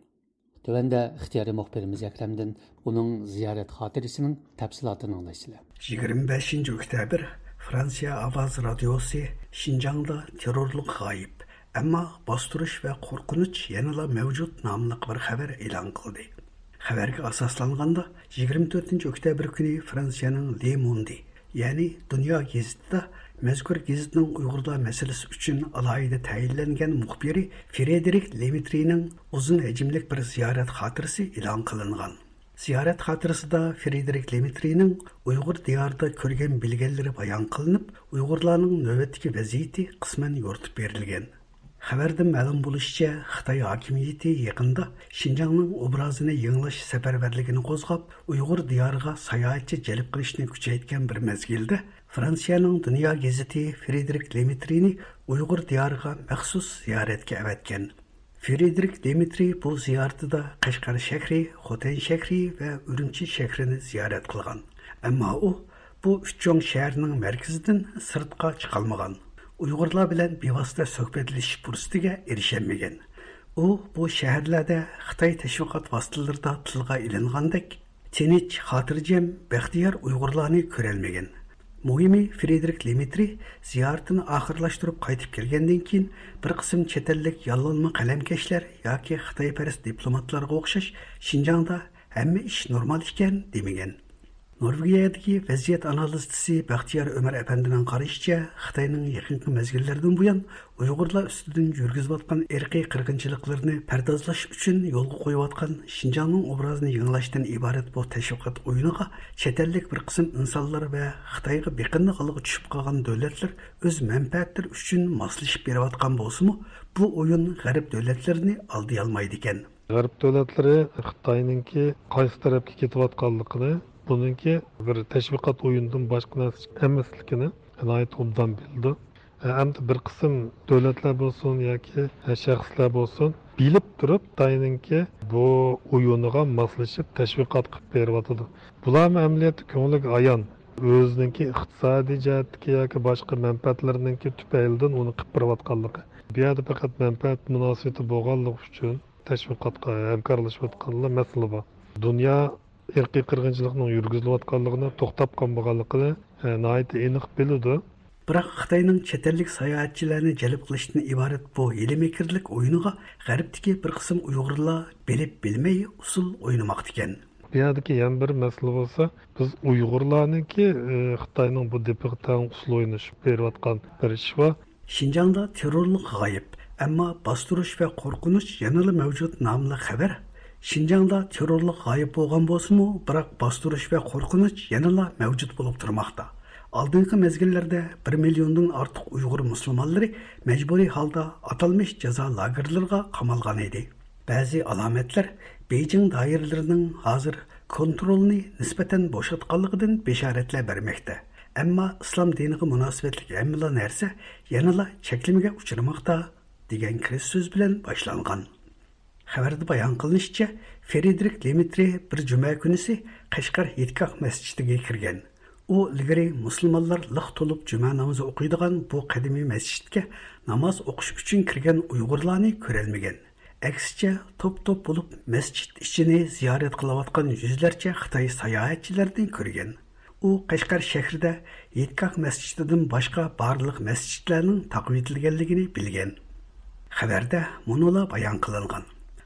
تۆۋەندە ئىختىيارىي مۇخبىرىمىز ئەكرەمدىن ئۇنىڭ زىيارەت خاتىرىسىنىڭ تەپسىلاتىنى ئاڭلايسىلەر. يىگىرمە بەشىنچى ئۆكتەبىر، فرانسىيە ئاۋاز رادىيوسى شىنجاڭدا تېررورلۇق غايىب، ئەمما باستۇرۇش ۋە قورقۇنچ يەنىلا مەۋجۇت ناملىق بىر خەۋەر ئېلان قىلدى. خەۋەرگە ئاساسلانغاندا، يىگىرمە تۆتىنچى ئۆكتەبىر كۈنى فرانسىيەنىڭ لې موندى، يەنى دۇنيا گېزىتىدە مەزكۇر گېزىتنىڭ ئۇيغۇرلار مەسىلىسى ئۈچۈن ئالاھىدە تەيىنلەنگەن مۇخبىرى فرېدېرىك لېمېترىنىڭ ئۇزۇن ھەجىملىك بىر زىيارەت خاتىرىسى ئېلان قىلىنغان. زىيارەت خاتىرىسىدا فرېدېرىك لېمېترىنىڭ ئۇيغۇر دىيارىدا كۆرگەن بىلگەنلىرى بايان قىلىنىپ، ئۇيغۇرلارنىڭ نۆۋەتتىكى ۋەزىيىتى قىسمەن يورۇتۇپ بېرىلگەن. خەۋەردىن مەلۇم بولۇشىچە، خىتاي ھاكىمىيىتى يېقىندا شىنجاڭنىڭ ئوبرازىنى يېڭىلاش سەپەرۋەرلىكىنى قوزغاپ، ئۇيغۇر دىيارىغا ساياھەتچى جەلپ قىلىشنى كۈچەيتكەن بىر مەزگىلدە، فرانسىيەنىڭ دۇنيا گېزىتى فرېدېرىك لېمېترىنى ئۇيغۇر دىيارىغا مەخسۇس زىيارەتكە ئەۋەتكەن. فرېدېرىك لېمېترى بۇ زىيارىتىدە قەشقەر شەھىرى، خوتەن شەھىرى ۋە ئۈرۈمچى شەھىرىنى زىيارەت قىلغان. ئەمما ئۇ بۇ ئۈچ چوڭ شەھەرنىڭ مەركىزىدىن سىرتقا چىقالمىغان. ئۇيغۇرلار بىلەن بىۋاسىتە سۆھبەتلىشىش پۇرسىتىگە ئېرىشەلمىگەن. ئۇ بۇ شەھەرلەردە خىتاي تەشۋىقات ۋاسىتىلىرىدا تىلغا ئېلىنغاندەك تىنچ، خاتىرجەم، بەختىيار ئۇيغۇرلارنى كۆرەلمىگەن. مۇھىمى، فرېدېرىك لېمېترى زىيارىتىنى ئاخىرلاشتۇرۇپ قايتىپ كەلگەندىن كېيىن، بىر قىسىم چەت ئەللىك ياللانما قەلەمكەشلەر ياكى خىتايپەرەس دىپلوماتلارغا ئوخشاش شىنجاڭدا ھەممە ئىش نورمال ئىكەن دېمىگەن. نورۋېگىيەدىكى ۋەزىيەت ئانالىزچىسى بەختىيار ئۆمەر ئەپەندىنىڭ قارىشىچە، خىتاينىڭ يېقىنقى مەزگىللەردىن بۇيان ئۇيغۇرلار ئۈستىدىن يۈرگۈزۈۋاتقان ئىرقىي قىرغىنچىلىقلىرىنى پەردازلاش ئۈچۈن يولغا قويۇۋاتقان شىنجاڭنىڭ ئوبرازىنى يېڭىلاشتىن ئىبارەت بۇ تەشۋىقات ئويۇنىغا چەت ئەللىك بىر قىسىم ئىنسانلار ۋە خىتايغا بېقىندى ھالغا چۈشۈپ قالغان دۆلەتلەر ئۆز مەنپەئەتلىرى ئۈچۈن ماسلىشىپ بېرىۋاتقان بولسىمۇ، بۇ ئويۇن غەرب دۆلەتلىرىنى ئالدىيالمايدىكەن. غەرب دۆلەتلىرى خىتاينىڭكى قايسى تەرەپكە كېتىۋاتقانلىقىنى، بۇنىڭكى بىر تەشۋىقات ئويۇنىدىن باشقا نەرسە ئەمەسلىكىنى ناھايىتى ئوبدان بىلىدۇ. ئەمدى بىر قىسىم دۆلەتلەر بولسۇن ياكى شەخسلەر بولسۇن، بىلىپ تۇرۇپ خىتاينىڭكى بۇ ئويۇنىغا ماسلىشىپ تەشۋىقات قىلىپ بېرىۋاتىدۇ. بۇلارمۇ ئەمەلىيەتتە كۆڭلىگە ئايان، ئۆزىنىڭكى ئىقتىسادىي جەھەتتىكى ياكى باشقا مەنپەئەتلىرىنىڭكى تۈپەيلىدىن ئۇنى قىلىپ بېرىۋاتقانلىقى. بۇ يەردە پەقەت مەنپەئەت مۇناسىۋىتى بولغانلىقى ئۈچۈن تەشۋىقاتقا ھەمكارلىشىۋاتقانلا مەسىلە بار. دۇنيا ئىرقىي قىرغىنچىلىقنىڭ يۈرگۈزۈلۈۋاتقانلىقىنى، توختاپ قالمىغانلىقىنى، ئە، ناھايىتى ئېنىق بىلىدۇ. بىراق خىتاينىڭ چەت ئەللىك ساياھەتچىلەرنى جەلپ قىلىشتىن ئىبارەت بۇ ھىيلە-مىكىرلىك ئويۇنىغا غەربتىكى بىر قىسىم ئۇيغۇرلار بىلىپ بىلمەي ئۇسسۇل ئوينىماقتىكەن. بۇ يەردىكى يەنە بىر مەسىلە بولسا، بىز ئۇيغۇرلارنىڭكى، ئى، خىتاينىڭ بۇ دېپىغا تەڭ ئۇسسۇل ئوينىشىپ بېرىۋاتقان بىر ئىش بار. شىنجاڭدا تېررورلۇق غايىب، ئەمما باستۇرۇش ۋە قورقۇنچ يەنىلا مەۋجۇت ناملىق خەۋەر. شىنجاڭدا تېررورلۇق غايىب بولغان بولسىمۇ، بىراق باستۇرۇش ۋە قورقۇنچ يەنىلا مەۋجۇت بولۇپ تۇرماقتا. ئالدىنقى مەزگىللەردە بىر مىليوندىن ئارتۇق ئۇيغۇر مۇسۇلمانلىرى مەجبۇرىي ھالدا ئاتالمىش جازا لاگېرلىرىغا قامالغان ئىدى. بەزى ئالامەتلەر بېيجىڭ دائىرىلىرىنىڭ ھازىر كونترولنى نىسبەتەن بوشاتقانلىقىدىن بېشارەتلەر بەرمەكتە. ئەمما ئىسلام دىنىغا مۇناسىۋەتلىك ھەممىلا نەرسە يەنىلا چەكلىمىگە ئۇچرىماقتا، دېگەن كىرىش سۆز بىلەن باشلانغان. خەۋەردە بايان قىلىنىشىچە، فرېدېرىك لېمېترى بىر جۈمە كۈنىسى قەشقەر ھېيتگاھ مەسچىتىگە كىرگەن. ئۇ ئىلگىرى مۇسۇلمانلار لىق تولۇپ جۈمە نامىزى ئوقۇيدىغان بۇ قەدىمىي مەسچىتكە ناماز ئوقۇش ئۈچۈن كىرگەن ئۇيغۇرلارنى كۆرەلمىگەن. ئەكسىچە، توپ-توپ بولۇپ مەسچىت ئىچىنى زىيارەت قىلىۋاتقان يۈزلەرچە خىتاي ساياھەتچىلەرنى كۆرگەن. ئۇ قەشقەر شەھىرىدە ھېيتگاھ مەسچىتىدىن باشقا بارلىق مەسچىتلەرنىڭ تاقىۋېتىلگەنلىكىنى بىلگەن. خەۋەردە مۇنۇلار بايان قىلىنغان: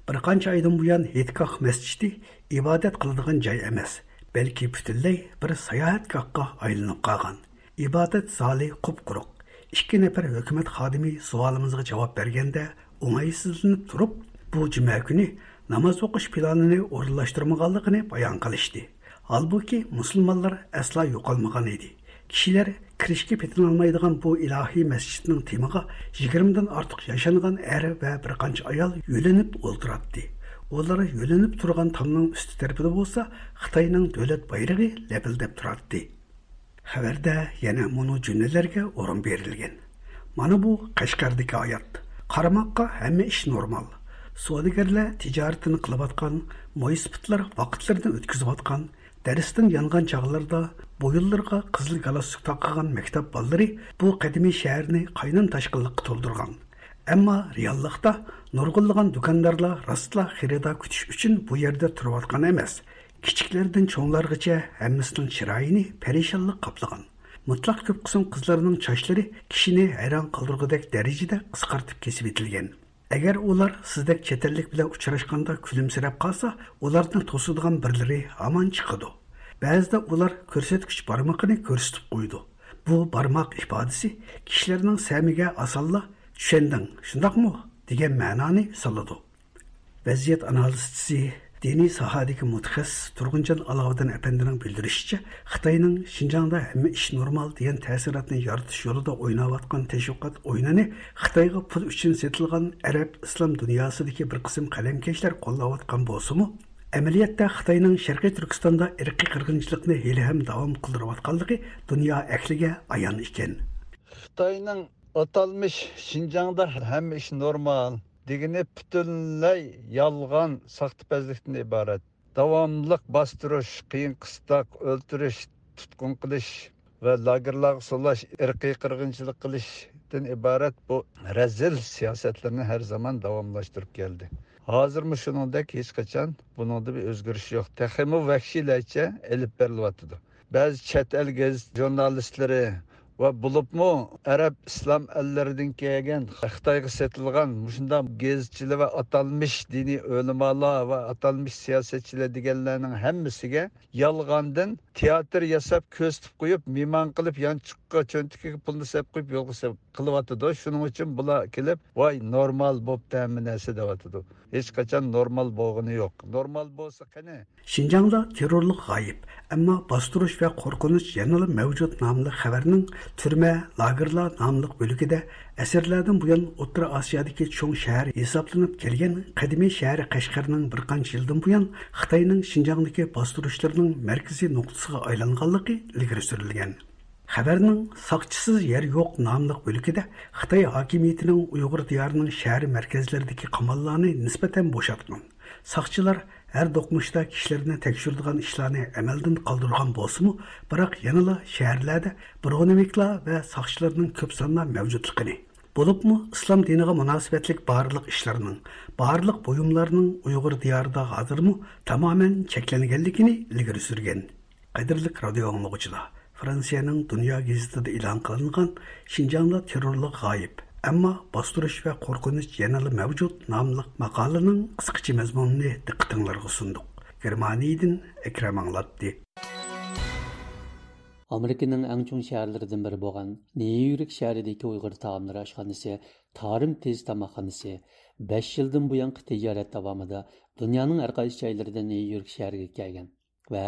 بىر قانچە ئايدىن بۇيان ھېيتگاھ مەسچىتى ئىبادەت قىلىدىغان جاي ئەمەس، بەلكى پۈتۈنلەي بىر ساياھەتگاھقا ئايلىنىپ قالغان. ئىبادەت زالى قۇپقۇرۇق. ئىككى نەپەر ھۆكۈمەت خادىمى سوئالىمىزغا جاۋاب بەرگەندە، ئوڭايسىزلىنىپ تۇرۇپ، بۇ جۈمە كۈنى ناماز ئوقۇش پىلانىنى ئورۇنلاشتۇرمىغانلىقىنى بايان قىلىشتى. ھالبۇكى، مۇسۇلمانلار ئەسلا يوقالمىغان ئىدى. كىشىلەر كىرىشكە پېتىنالمايدىغان بۇ ئىلاھىي مەسچىتنىڭ تېمىغا يىگىرمىدىن ئارتۇق ياشانغان ئەر ۋە بىر قانچە ئايال يۆلىنىپ ئولتۇراتتى. ئۇلار يۆلىنىپ تۇرغان تامنىڭ ئۈستى تەرىپىدە بولسا خىتاينىڭ دۆلەت بايرىقى لەپىلدەپ تۇراتتى. خەۋەردە يەنە مۇنۇ جۈملىلەرگە ئورۇن بېرىلگەن: مانا بۇ قەشقەردىكى ھايات. قارىماققا ھەممە ئىش نورمال. سودىگەرلەر تىجارىتىنى قىلىۋاتقان، مويسىپىتلار ۋاقىتلىرىنى ئۆتكۈزۈۋاتقان، دەرستىن يانغان چاغلىرىدا بويۇنلىرىغا قىزىل گالستۇك تاقىغان مەكتەپ بالىلىرى بۇ قەدىمىي شەھەرنى قاينام تاشقىنلىققا تولدۇرغان. ئەمما رېئاللىقتا نۇرغۇنلىغان دۇكاندارلار راستلا خېرىدار كۈتۈش ئۈچۈن بۇ يەردە تۇرۇۋاتقان ئەمەس. كىچىكلەردىن چوڭلارغىچە ھەممىسىنىڭ چىرايىنى پەرىشانلىق قاپلىغان. مۇتلەق كۆپ قىسىم قىزلارنىڭ چاچلىرى كىشىنى ھەيران قالدۇرغۇدەك دەرىجىدە قىسقارتىپ كېسىۋېتىلگەن. ئەگەر ئۇلار سىزدەك چەت ئەللىك بىلەن ئۇچراشقاندا كۈلۈمسىرەپ قالسا، ئۇلارنى توسىدىغان بىرلىرى ھامان چىقىدۇ. بەزىدە ئۇلار كۆرسەتكۈچ بارمىقىنى كۆرسىتىپ قويىدۇ. بۇ بارماق ئىپادىسى كىشىلەرنىڭ سەمىگە ئاسانلا «چۈشەندىڭ، شۇنداقمۇ؟» دېگەن مەنانى سالىدۇ. ۋەزىيەت ئانالىزچىسى، دىنىي ساھەدىكى مۇتەخەسسىس تۇرغۇنجان ئالاۋۇدىن ئەپەندىنىڭ بىلدۈرۈشىچە، خىتاينىڭ شىنجاڭدا ھەممە ئىش نورمال دېگەن تەسىراتنى يارىتىش يولىدا ئويناۋاتقان تەشۋىقات ئويۇنىنى خىتايغا پۇل ئۈچۈن سېتىلغان ئەرەب ئىسلام دۇنياسىدىكى بىر قىسىم قەلەمكەشلەر قوللاۋاتقان بولسىمۇ، ئەمەلىيەتتە خىتاينىڭ شەرقىي تۈركىستاندا ئىرقىي قىرغىنچىلىقنى ھېلىھەم داۋام قىلدۇرۇۋاتقانلىقى دۇنيا ئەھلىگە ئايان ئىكەن. خىتاينىڭ ئاتالمىش «شىنجاڭدا ھەممە ئىش نورمال» دېگىنى پۈتۈنلەي يالغان، ساختىپەزلىكتىن ئىبارەت. داۋاملىق باستۇرۇش، قىيىن قىستاق، ئۆلتۈرۈش، تۇتقۇن قىلىش ۋە لاگېرلارغا سولاش، ئىرقىي قىرغىنچىلىق قىلىشتىن ئىبارەت بۇ رەزىل سىياسەتلىرىنى ھەر زامان داۋاملاشتۇرۇپ كەلدى. ھازىرمۇ شۇنىڭدەك، ھېچقاچان بۇنىڭدا بىر ئۆزگىرىش يوق. تېخىمۇ ۋەھشىيلەرچە ئېلىپ بېرىلىۋاتىدۇ. بەزى چەت ئەل گېزىت ژۇرنالىستلىرى ۋە بولۇپمۇ ئەرەب ئىسلام ئەللىرىدىن كەلگەن، خىتايغا سېتىلغان مۇشۇنداق گېزىتچىلەر ۋە ئاتالمىش دىنىي ئۆلىمالار ۋە ئاتالمىش سىياسەتچىلەر دېگەنلەرنىڭ ھەممىسىگە يالغاندىن تىياتىر ياساپ، كۆرسىتىپ قويۇپ، مېھمان قىلىپ، يانچۇققا، چۆنتىكىگە پۇلنى سېلىپ قويۇپ، يولغا سېلىپ قىلىۋاتىدۇ. شۇنىڭ ئۈچۈن بۇلار كېلىپ، «ۋاي، نورمال بوپتۇ ھەممە نەرسە» دەۋاتىدۇ. ھېچقاچان نورمال بولغىنى يوق. نورمال بولسا قېنى؟ شىنجاڭدا تېررورلۇق غايىب، ئەمما باستۇرۇش ۋە قورقۇنچ يەنىلا مەۋجۇت ناملىق خەۋەرنىڭ تۈرمە، لاگېرلار ناملىق بۆلىكىدە ئەسىرلەردىن بۇيان ئوتتۇرا ئاسىيادىكى چوڭ شەھەر ھېسابلىنىپ كەلگەن قەدىمىي شەھەر قەشقەرنىڭ بىر قانچە يىلدىن بۇيان خىتاينىڭ شىنجاڭدىكى باستۇرۇشلىرىنىڭ مەركىزىي نۇقتىسىغا ئايلانغانلىقى ئىلگىرى سۈرۈلگەن. خەۋەرنىڭ «ساقچىسىز يەر يوق» ناملىق بۆلىكىدە خىتاي ھاكىمىيىتىنىڭ ئۇيغۇر دىيارىنىڭ شەھەر مەركەزلىرىدىكى قاماللارنى نىسبەتەن بوشاتقان. ساقچىلار ھەر دوقمۇشتا كىشىلەرنى تەكشۈرىدىغان ئىشلارنى ئەمەلدىن قالدۇرغان بولسىمۇ، بىراق يەنىلا شەھەرلەردە برونېۋىكلار ۋە ساقچىلارنىڭ كۆپ ساندا مەۋجۇتلۇقىنى، بولۇپمۇ ئىسلام دىنىغا مۇناسىۋەتلىك بارلىق ئىشلارنىڭ، بارلىق بۇيۇملارنىڭ ئۇيغۇر دىيارىدا ھازىرمۇ تامامەن چەكلەنگەنلىكىنى ئىلگىرى سۈرگەن. قەدىرلىك رادىيو ئاڭلىغۇچىلار، فرانسىيەنىڭ دۇنيا گېزىتىدە ئېلان قىلىنغان «شىنجاڭدا تېررورلۇق غايىب، ئەمما باستۇرۇش ۋە قورقۇنچ يەنىلا مەۋجۇت» ناملىق ماقالىنىڭ قىسقىچە مەزمۇنىنى دىققىتىڭلارغا سۇندۇق. گېرمانىيىدىن ئەكرەم ئاڭلاتتى. ئامېرىكىنىڭ ئەڭ چوڭ شەھەرلىرىدىن بىرى بولغان نيۇ يورك شەھىرىدىكى ئۇيغۇر تائاملىرى ئاشخانىسى تارىم تېز تاماقخانىسى بەش يىلدىن بۇيانقى تىجارەت داۋامىدا دۇنيانىڭ ھەر قايسى جايلىرىدىن نيۇ يورك شەھىرىگە كەلگەن ۋە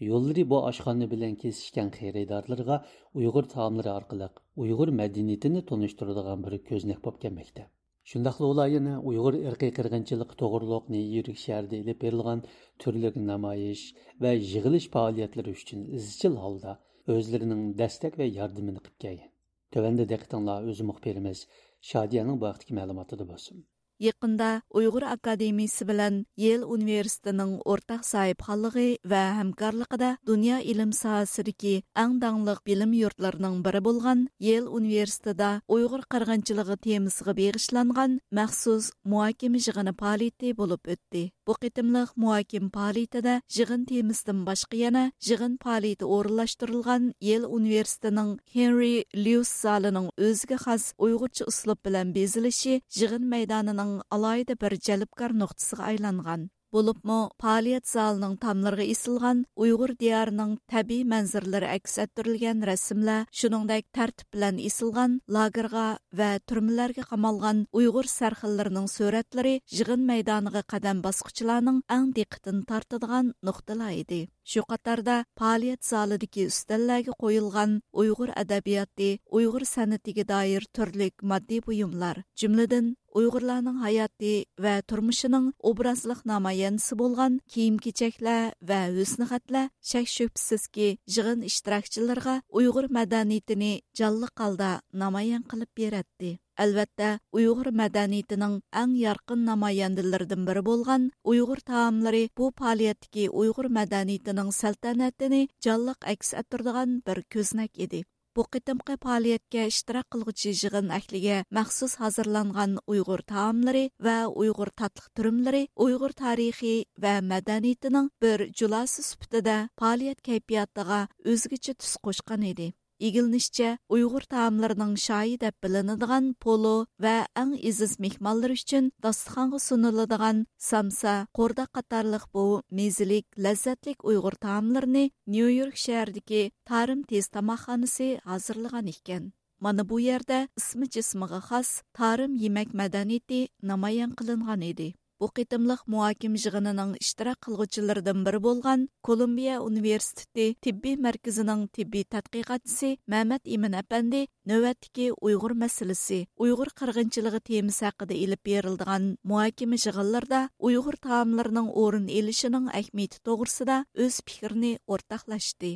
يوللىرى بۇ ئاشخانا بىلەن كېسىشكەن خېرىدارلىرىغا ئۇيغۇر تائاملىرى ئارقىلىق ئۇيغۇر مەدەنىيىتىنى تونۇشتۇرىدىغان بىر كۆزنەك بولۇپ كەلمەكتە. شۇنداقلا ئۇلار يەنە ئۇيغۇر ئىرقىي قىرغىنچىلىقى توغرۇلۇق نيۇ يورك شەھىرىدە ئېلىپ بېرىلغان تۈرلۈك نامايىش ۋە يىغىلىش پائالىيەتلىرى ئۈچۈن ئىزچىل ھالدا ئۆزلىرىنىڭ دەستەك ۋە ياردىمىنى قىلىپ كەلگەن. تۆۋەندە دىققىتىڭلار ئۆز مۇخبىرىمىز شادىيەنىڭ بۇ ھەقتىكى مەلۇماتىدا بولسۇن. يېقىندا ئۇيغۇر ئاكادېمىيىسى بىلەن يېل ئۇنىۋېرسىتېتىنىڭ ئورتاق ساھىبخانلىقى ۋە ھەمكارلىقىدا دۇنيا ئىلىم ساھەسىدىكى ئەڭ داڭلىق بىلىم يۇرتلىرىنىڭ بىرى بولغان يېل ئۇنىۋېرسىتېتىدا ئۇيغۇر قىرغىنچىلىقى تېمىسىغا بېغىشلانغان مەخسۇس مۇھاكىمە يىغىنى پائالىيىتى بولۇپ ئۆتتى. بۇ قېتىملىق مۇھاكىمە پائالىيىتىدە يىغىن تېمىسىدىن باشقا يەنە يىغىن پائالىيىتى ئورۇنلاشتۇرۇلغان يېل ئۇنىۋېرسىتېتىنىڭ ھېنرى ليۇس زالىنىڭ ئۆزىگە خاس ئۇيغۇرچە ئۇسلۇب بىلەن بېزىلىشى يىغىن مەيدانىنىڭ ئالاھىدە بىر جەلپكار نۇقتىسىغا ئايلانغان. بولۇپمۇ پائالىيەت زالىنىڭ تاملىرىغا ئېسىلغان ئۇيغۇر دىيارىنىڭ تەبىئىي مەنزىرىلىرى ئەكس ئەتتۈرۈلگەن رەسىملەر، شۇنىڭدەك تەرتىپ بىلەن ئېسىلغان لاگېرغا ۋە تۈرمىلەرگە قامالغان ئۇيغۇر سەرخىللىرىنىڭ سۈرەتلىرى يىغىن مەيدانىغا قەدەم باسقۇچىلارنىڭ ئەڭ دىققىتىنى تارتىدىغان نۇقتىلار ئىدى. شۇ قاتاردا پائالىيەت زالىدىكى ئۈستەللەرگە قويۇلغان ئۇيغۇر ئەدەبىياتى، ئۇيغۇر سەنئىتىگە دائىر تۈرلۈك ماددىي بۇيۇملار، جۈملىدىن ئۇيغۇرلارنىڭ ھاياتى ۋە تۇرمۇشىنىڭ ئوبرازلىق نامايەندىسى بولغان كىيىم-كېچەكلەر ۋە ھۆسنىخەتلەر شەك-شۈبھىسىزكى يىغىن ئىشتىراكچىلىرىغا ئۇيغۇر مەدەنىيىتىنى جانلىق ھالدا نامايان قىلىپ بېرەتتى. ئەلۋەتتە، ئۇيغۇر مەدەنىيىتىنىڭ ئەڭ يارقىن نامايەندىلىرىدىن بىرى بولغان ئۇيغۇر تائاملىرى بۇ پائالىيەتتىكى ئۇيغۇر مەدەنىيىتىنىڭ سەلتەنەتىنى جانلىق ئەكس ئەتتۈرىدىغان بىر كۆزنەك ئىدى. بۇ قېتىمقى پائالىيەتكە ئىشتىراك قىلغۇچى يىغىن ئەھلىگە مەخسۇس ھازىرلانغان ئۇيغۇر تائاملىرى ۋە ئۇيغۇر تاتلىق تۈرۈملىرى، ئۇيغۇر تارىخى ۋە مەدەنىيىتىنىڭ بىر جۇلاسى سۈپىتىدە پائالىيەت كەيپىياتىغا ئۆزگىچە تۈس قوشقان ئىدى. ئىگىلىنىشىچە، ئۇيغۇر تائاملىرىنىڭ شاھى دەپ بىلىنىدىغان پولۇ ۋە ئەڭ ئېزىز مېھمانلىرى ئۈچۈن داستىخانغا سۇنۇلىدىغان سامسا، قورداق قاتارلىق بۇ مېزىلىك، لەززەتلىك ئۇيغۇر تائاملىرىنى نيۇ يورك شەھىرىدىكى تارىم تېز تاماقخانىسى ھازىرلىغان ئىكەن. مانا بۇ يەردە ئىسمى جىسمىغا خاس تارىم يېمەك مەدەنىيىتى نامايان قىلىنغان ئىدى. بۇ قېتىملىق مۇھاكىمە يىغىنىنىڭ ئىشتىراك قىلغۇچىلىرىدىن بىرى بولغان كولومبىيە ئۇنىۋېرسىتېتى تېببىي مەركىزىنىڭ تېببىي تەتقىقاتچىسى مەمەت ئىمىن ئەپەندى نۆۋەتتىكى ئۇيغۇر مەسىلىسى، ئۇيغۇر قىرغىنچىلىقى تېمىسى ھەققىدە ئېلىپ بېرىلىدىغان مۇھاكىمە يىغىنلىرىدا ئۇيغۇر تائاملىرىنىڭ ئورۇن ئېلىشىنىڭ ئەھمىيىتى توغرىسىدا ئۆز پىكرىنى ئورتاقلاشتى.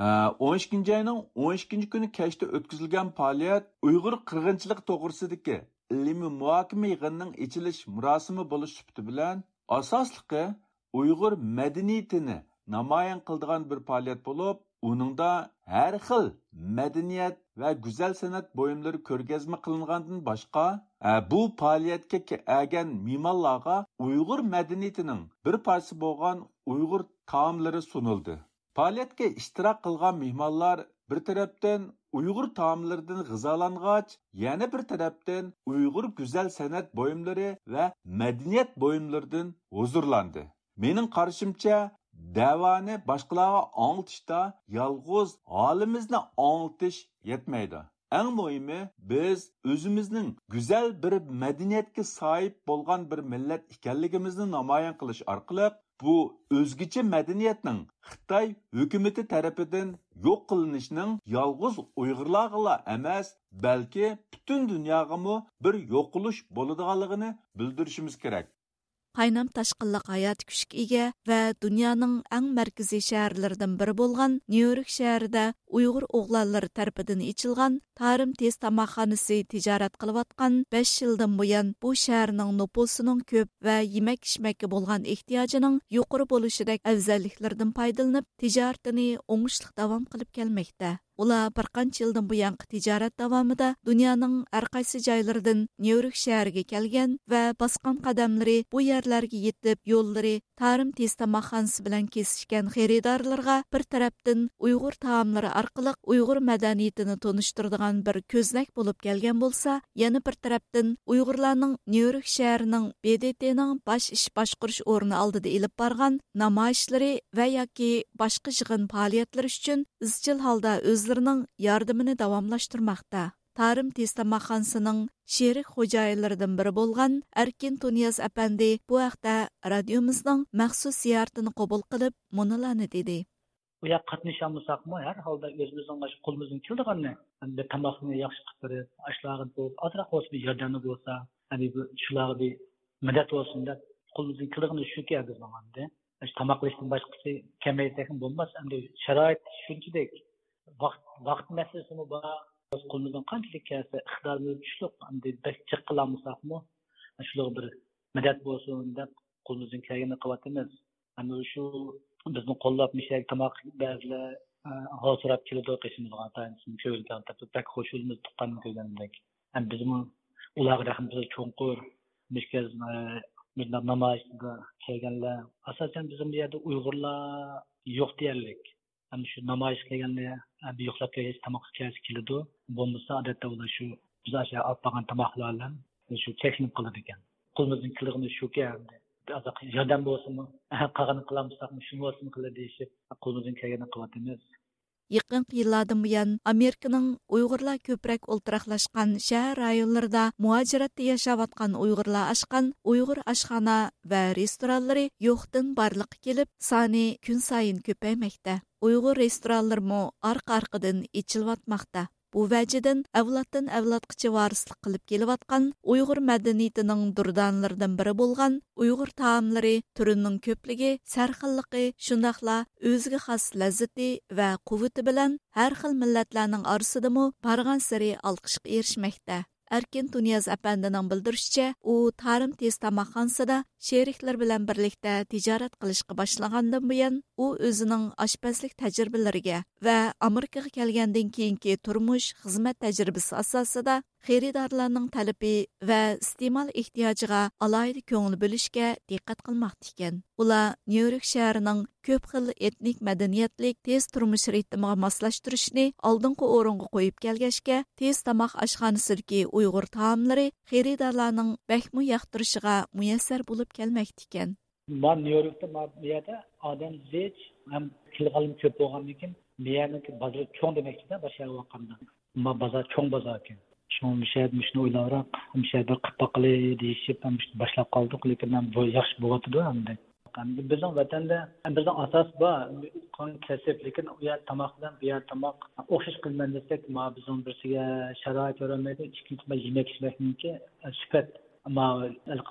ئون ئىككىنچى ئاينىڭ ئون ئىككىنچى كۈنى كەچتە ئۆتكۈزۈلگەن پائالىيەت ئۇيغۇر قىرغىنچىلىقى توغرىسىدىكى ئىلمىي مۇھاكىمە يىغىنىنىڭ ئېچىلىش مۇراسىمى بولۇش سۈپىتى بىلەن، ئاساسلىقى ئۇيغۇر مەدەنىيىتىنى نامايان قىلىدىغان بىر پائالىيەت بولۇپ، ئۇنىڭدا ھەر خىل مەدەنىيەت ۋە گۈزەل سەنئەت بۇيۇملىرى كۆرگەزمە قىلىنغاندىن باشقا، ئە، بۇ پائالىيەتكە كەلگەن مېھمانلارغا ئۇيغۇر مەدەنىيىتىنىڭ بىر پارچىسى بولغان ئۇيغۇر تائاملىرى سۇنۇلدى. پائالىيەتكە ئىشتىراك قىلغان مېھمانلار بىر تەرەپتىن ئۇيغۇر تائاملىرىدىن غىزالانغاچ، يەنە بىر تەرەپتىن ئۇيغۇر گۈزەل سەنئەت بۇيۇملىرى ۋە مەدەنىيەت بۇيۇملىرىدىن ھۇزۇرلاندى. مېنىڭ قارىشىمچە، دەۋانى باشقىلارغا ئاڭلىتىشتا يالغۇز ھالىمىزنى ئاڭلىتىش يەتمەيدۇ. ئەڭ مۇھىمى، بىز ئۆزىمىزنىڭ گۈزەل بىر مەدەنىيەتكە ساھىب بولغان بىر مىللەت ئىكەنلىكىمىزنى نامايان قىلىش ئارقىلىق، بۇ ئۆزگىچە مەدەنىيەتنىڭ خىتاي ھۆكۈمىتى تەرىپىدىن يوق قىلىنىشىنىڭ يالغۇز ئۇيغۇرلارغىلا ئەمەس، بەلكى پۈتۈن دۇنياغىمۇ بىر يوقىلىش بولىدىغانلىقىنى بىلدۈرۈشىمىز كېرەك. قاينام تاشقىنلىق ھاياتىي كۈچكە ئىگە ۋە دۇنيانىڭ ئەڭ مەركىزىي شەھەرلىرىدىن بىرى بولغان نيۇ يورك شەھىرىدە ئۇيغۇر ئوغلانلىرى تەرىپىدىن ئېچىلغان تارىم تېز تاماقخانىسى تىجارەت قىلىۋاتقان بەش يىلدىن بۇيان بۇ شەھەرنىڭ نوپۇسىنىڭ كۆپ ۋە يېمەك-ئىچمەككە بولغان ئېھتىياجىنىڭ يۇقىرى بولۇشىدەك ئەۋزەللىكلىرىدىن پايدىلىنىپ، تىجارىتىنى ئوڭۇشلۇق داۋام قىلىپ كەلمەكتە. ئۇلار بىر قانچە يىلدىن بۇيانقى تىجارەت داۋامىدا دۇنيانىڭ ھەر قايسى جايلىرىدىن نيۇ يورك شەھىرىگە كەلگەن ۋە باسقان قەدەملىرى بۇ يەرلەرگە يېتىپ، يوللىرى تارىم تېز تاماقخانىسى بىلەن كېسىشكەن خېرىدارلىرىغا بىر تەرەپتىن ئۇيغۇر تائاملىرى ئارقىلىق ئۇيغۇر مەدەنىيىتىنى تونۇشتۇرىدىغان بىر كۆزنەك بولۇپ كەلگەن بولسا، يەنە بىر تەرەپتىن ئۇيغۇرلارنىڭ نيۇ يورك شەھىرىنىڭ ب د ت نىڭ باش ئىش باشقۇرۇش ئورنى ئالدىدا ئېلىپ بارغان نامايىشلىرى ۋە ياكى باشقا يىغىن پائالىيەتلىرى ئۈچۈن ئىزچىل ھالدا ئۆزلىرىنىڭ ياردىمىنى داۋاملاشتۇرماقتا. تارىم تېز تاماقخانىسىنىڭ شېرىك خوجايىنلىرىدىن بىرى بولغان ئەركىن تۇنىياز ئەپەندى بۇ ھەقتە رادىيومىزنىڭ مەخسۇس زىيارىتىنى قوبۇل قىلىپ، مۇنۇلارنى دېدى. ئۇ يەرگە قاتنىشالمىساقمۇ، ھەر ھالدا ئۆزىمىزنىڭ مۇشۇ قولىمىزدىن كېلىدىغىنىنى، بىر تاماقنى ياخشى قىلىپ بېرىپ، ئاشۇلارغا بىر ئازراق بولسىمۇ ياردەملىك بولسا، ھەم بىر شۇلارغا بىر مەدەت بولسۇن دەپ، قولىمىزدىن كېلىدىغىنى شۇكى بىزنىڭ ئەمدى. ئاشۇ تاماق ئېلىشتىن باشقىسى كەلمەيدىكەن بولماس، ئەمدى شارائىت شۇنچىلىك، ۋاقىت، ۋاقىت مەسىلىسىمۇ بار. قولىمىزدىن قانچىلىك كەلسە، ئىقتىدارىمىز كۈچلۈك، ئەمدى بەك جىق قىلالمىساقمۇ، شۇلارغا بىر مەدەت بولسۇن دەپ، قولىمىزدىن كەلگىنىنى قىلىۋاتىمىز. ئەمما شۇ بىزنى قوللاپ، مۇشۇ يەرگە تاماق بەزىلەر، ئە، ھال سوراپ كېلىدۇ، قېشىمىزغا ئاتايىنىسىنى كۆرگەن تەرتىپ بەك خوش بولىمىز، تۇغقاننى كۆرگەندەك. ئەمما بىزمۇ ئۇلارغا رەھمىتىمىز چوڭقۇر. مۇشۇ گەز-، ئە، مۇشۇنداق نامايىشقا كەلگەنلەر، ئاساسەن، بىزنىڭ بۇ يەردە ئۇيغۇرلار يوق دېيەرلىك. ئەمما شۇ نامايىشقا كەلگەندە، ئە، بىر يوقلاپ كەلگەچ تاماققا كەلسە كېلىدۇ. بولمىسا، ئادەتتە ئۇلار شۇ بىز ئاشۇ ئاپ بارغان تاماقلار بىلەن شۇ چەكلىنىپ قالىدىكەن. قولىمىزدىن كېلىدىغىنى شۇكى، ئەمدى بىر ئازراق ياردەم بولسىمۇ، قالغىنىنى قىلالمىساقمۇ، شۇ بولسىمۇ قىلە دېيىشىپ، قولىمىزدىن كەلگىنىنى قىلىۋاتىمىز. يېقىنقى يىللاردىن بۇيان، ئامېرىكىنىڭ ئۇيغۇرلار كۆپرەك ئولتۇراقلاشقان شەھەر رايونلىرىدا مۇھاجىرەتتە ياشاۋاتقان ئۇيغۇرلار ئاچقان ئۇيغۇر ئاشخانا ۋە رېستورانلىرى يوقتىن بارلىققا كېلىپ، سانى كۈنسايىن كۆپەيمەكتە. ئۇيغۇر رېستورانلىرىمۇ ئارقا-ئارقىدىن ئېچىلىۋاتماقتا. بۇ ۋەجىدىن ئەۋلادتىن ئەۋلادقىچە ۋارىسلىق قىلىپ كېلىۋاتقان ئۇيغۇر مەدەنىيىتىنىڭ دۇردانىلىرىدىن بىرى بولغان ئۇيغۇر تائاملىرى تۈرىنىڭ كۆپلۈكى، سەرخىللىقى، شۇنداقلا ئۆزىگە خاس لەززىتى ۋە قۇۋۋىتى بىلەن ھەر خىل مىللەتلەرنىڭ ئارىسىدىمۇ بارغانسېرى ئالقىشقا ئېرىشمەكتە. ئەركىن تۇنىياز ئەپەندىنىڭ بىلدۈرۈشىچە، ئۇ تارىم تېز تاماقخانىسىدا شېرىكلىرى بىلەن بىرلىكتە تىجارەت قىلىشقا باشلىغاندىن بۇيان، ئۇ ئۆزىنىڭ ئاشپەزلىك تەجرىبىلىرىگە ۋە ئامېرىكىغا كەلگەندىن كېيىنكى تۇرمۇش، خىزمەت تەجرىبىسى ئاساسىدا خېرىدارلارنىڭ تەلىپى ۋە ئىستېمال ئېھتىياجىغا ئالاھىدە كۆڭۈل بۆلۈشكە دىققەت قىلماقتا ئىكەن. ئۇلار نيۇ يورك شەھىرىنىڭ كۆپ خىل ئېتنىك مەدەنىيەتلىك تېز تۇرمۇش رىتىمىغا ماسلاشتۇرۇشنى ئالدىنقى ئورۇنغا قويۇپ كەلگەچكە، تېز تاماق ئاشخانىسىدىكى ئۇيغۇر تائاملىرى خېرىدارلارنىڭ بەكمۇ ياقتۇرۇشىغا مۇيەسسەر بولۇپ كەلمەكتىكەن. ما نيۇ يوركتا ما بۇ يەردە ئادەم زىچ ھەم كېلىدىغانلىرىمۇ كۆپ بولغاندىن كېيىن، بۇ يەرنىڭكى بازىرى چوڭ دېمەكچىدە، باشقا يەرگە قارىغاندا. ما بازار چوڭ بازار ئىكەن. شۇڭا مۇشۇ يەردە مۇشۇنى ئويلاۋراق، مۇشۇ يەردە بىر قىلىپ باققىلى دېيىشىپ، مۇشۇ باشلاپ قالدۇق. لېكىن بۇ ياخشى بولۇۋاتىدۇ ئەمدى. ئەمدى بىزنىڭ ۋەتەندە بىزنىڭ ئاساس بار، قان كەسىپ، لېكىن ئۇ يەر تاماق بىلەن بۇ يەر تاماق ئوخشاش قىلىمەن دېسەك، ما بىزنىڭ بىرسىگە شارائىت يارىمايدۇ، ئىككىنچى ما يېمەك ئىچمەكنىڭكى سۈپەت، ما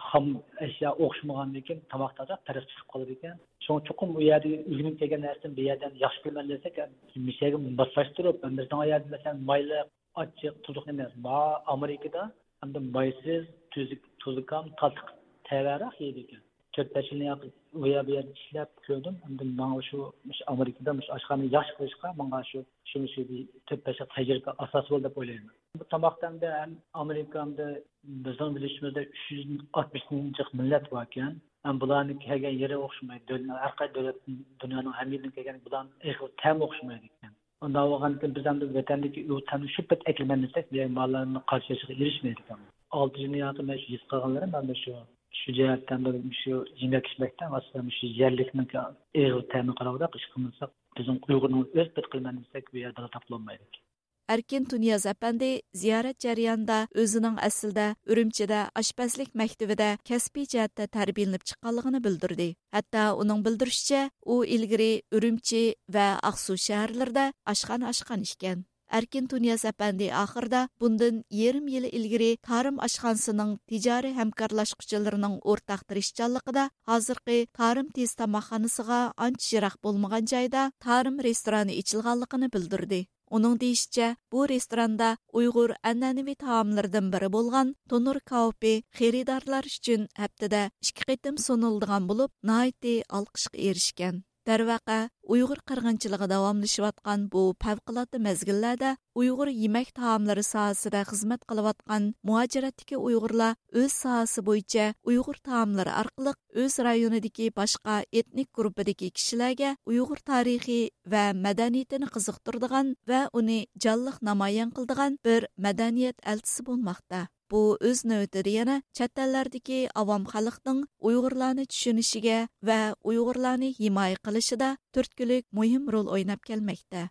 خام ئەشيا ئوخشىمىغاندىن كېيىن تاماقتا پەرق چىقىپ قالىدىكەن. شۇڭا چوقۇم ئۇ يەردە ئۆگىنىپ كەلگەن نەرسىنى بۇ يەردىن ياخشى بىلىمەن دېسەك، مۇشۇ يەرگە ماسلاشتۇرۇپ، بىزنىڭ يەردە مەسىلەن مايلىق، ئاچچىق، تۇزلۇق ئەمەس. ما ئامېرىكىدا ئەمدى مايسىز، تۈزۈك، تۇزلۇكام، تاتلىق تەۋەرەك يەيدىكەن. تۆت بەش يىل ياقى ئۇ يەر بۇ يەردە ئىشلەپ كۆردۈم. ئەمدى ماڭا شۇ، مۇشۇ ئامېرىكىدا مۇشۇ ئاشخانىنى ياخشى قىلىشقا ماڭا شۇ، شۇ، شۇ بىر تۆت بەش يىل تەجرىبە ئاساس بولدى دەپ ئويلايمەن. بۇ تاماقتا ئەمدى ھەم ئامېرىكا، ئەمدى بىزنىڭ بىلىشىمىزدە ئۈچ يۈز ئاتمىش مىليون جىق مىللەت باركەن. ھەم بۇلارنىڭ كەلگەن يېرى ئوخشىمايدۇ. دۆلەت، ھەر قايسى دۆلەت، دۇنيانىڭ ھەممە يېرىدىن كەلگەن بۇلارنىڭ ئېغىز تەمى ئوخشىمايدىكەن. ئۇنداق بولغاندىكىن بىز ئەمدى ۋەتەندىكى ئۇ تەمنى شۇ پەت ئەكىلىمەن دېسەك، بۇ يەر ماللارنىڭ قارشى ئېلىشىغا ئېرىشمەيدىكەن. ئالتە يىل ياقى مەن شۇ ھېس قىلغانلىرىم، مەن شۇ، شۇ جەھەتتە مەن شۇ يېمەك ئىچمەكتە ئاساسەن شۇ يەرلىكنىڭ ئېغىز تەمىگە قاراۋاراق ئىش قىلمىساق، بىزنىڭ ئۇيغۇرنىڭ ئۆز پېتى قىلىمەن دېسەك، بۇ يەردە تاپىلالمايدۇ. ئەركىن تۇنىياز ئەپەندى زىيارەت جەريانىدا ئۆزىنىڭ ئەسلىدە ئۈرۈمچىدە ئاشپەزلىك مەكتىۋىدە كەسپىي جەھەتتە تەربىيەلىنىپ چىققانلىقىنى بىلدۈردى. ھەتتا ئۇنىڭ بىلدۈرۈشىچە، ئۇ ئىلگىرى ئۈرۈمچى ۋە ئاقسۇ شەھەرلىرىدە ئاشخانا ئاچقان ئىكەن. ئەركىن تۇنىياز ئەپەندى ئاخىرىدا بۇندىن يېرىم يىل ئىلگىرى تارىم ئاشخانىسىنىڭ تىجارىي ھەمكارلاشقۇچىلىرىنىڭ ئورتاق تىرىشچانلىقىدا ھازىرقى تارىم تېز تاماقخانىسىغا ئانچە يىراق بولمىغان جايدا تارىم رېستورانى ئېچىلغانلىقىنى بىلدۈردى. ئۇنىڭ دېيىشىچە، بۇ رېستوراندا ئۇيغۇر ئەنئەنىۋى تائاملىرىدىن بىرى بولغان تونۇر كاۋىپى خېرىدارلار ئۈچۈن ھەپتىدە ئىككى قېتىم سۇنۇلىدىغان بولۇپ، ناھايىتى ئالقىشقا ئېرىشكەن. دەرۋەقە، ئۇيغۇر قىرغىنچىلىقى داۋاملىشىۋاتقان بۇ پەۋقۇلئاددە مەزگىللەردە ئۇيغۇر يېمەك تائاملىرى ساھەسىدە خىزمەت قىلىۋاتقان مۇھاجىرەتتىكى ئۇيغۇرلار ئۆز ساھەسى بويىچە ئۇيغۇر تائاملىرى ئارقىلىق ئۆز رايونىدىكى باشقا ئېتنىك گۇرۇپپىدىكى كىشىلەرگە ئۇيغۇر تارىخى ۋە مەدەنىيىتىنى قىزىقتۇرىدىغان ۋە ئۇنى جانلىق نامايان قىلىدىغان بىر مەدەنىيەت ئەلچىسى بولماقتا. بۇ ئۆز نۆۋىتىدە يەنە چەت ئەللەردىكى ئاۋام خەلقنىڭ ئۇيغۇرلارنى چۈشىنىشىگە ۋە ئۇيغۇرلارنى ھىمايە قىلىشىدا تۈرتكىلىك مۇھىم رول ئويناپ كەلمەكتە.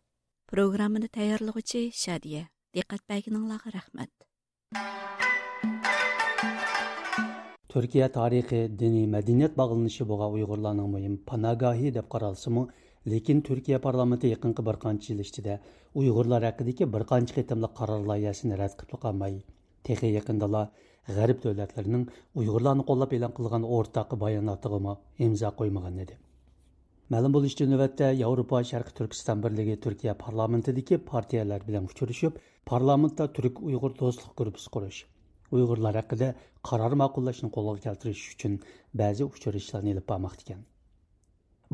پروگراممىنى تەييارلىغۇچى شادىيە. دىققەت بەرگىنىڭلارغا رەھمەت. تۈركىيە تارىخى دىنىي مەدەنىيەت باغلىنىشى بولغان ئۇيغۇرلارنىڭ مۇھىم پاناگاھى دەپ قارالسىمۇ، لېكىن تۈركىيە پارلامېنتى يېقىنقى بىر قانچە يىل ئىچىدە ئۇيغۇرلار ھەققىدىكى بىر قانچە قېتىملىق قارار لايىھەسىنى رەت قىلىپلا قالماي، تېخى يېقىندىلا غەرب دۆلەتلىرىنىڭ ئۇيغۇرلارنى قوللاپ ئېلان قىلغان ئورتاق باياناتىغىمۇ ئىمزا قويمىغان ئىدى. مەلۇم بولۇشىچە، نۆۋەتتە ياۋروپا شەرقىي تۈركىستان بىرلىكى تۈركىيە پارلامېنتىدىكى پارتىيەلەر بىلەن ئۇچرىشىپ، پارلامېنتتا تۈرك ئۇيغۇر دوستلۇق گۇرۇپپىسى قۇرۇش، ئۇيغۇرلار ھەققىدە قارار ماقۇللاشنى قولغا كەلتۈرۈش ئۈچۈن بەزى ئۇچرىشىشلارنى ئېلىپ بارماقتا ئىكەن.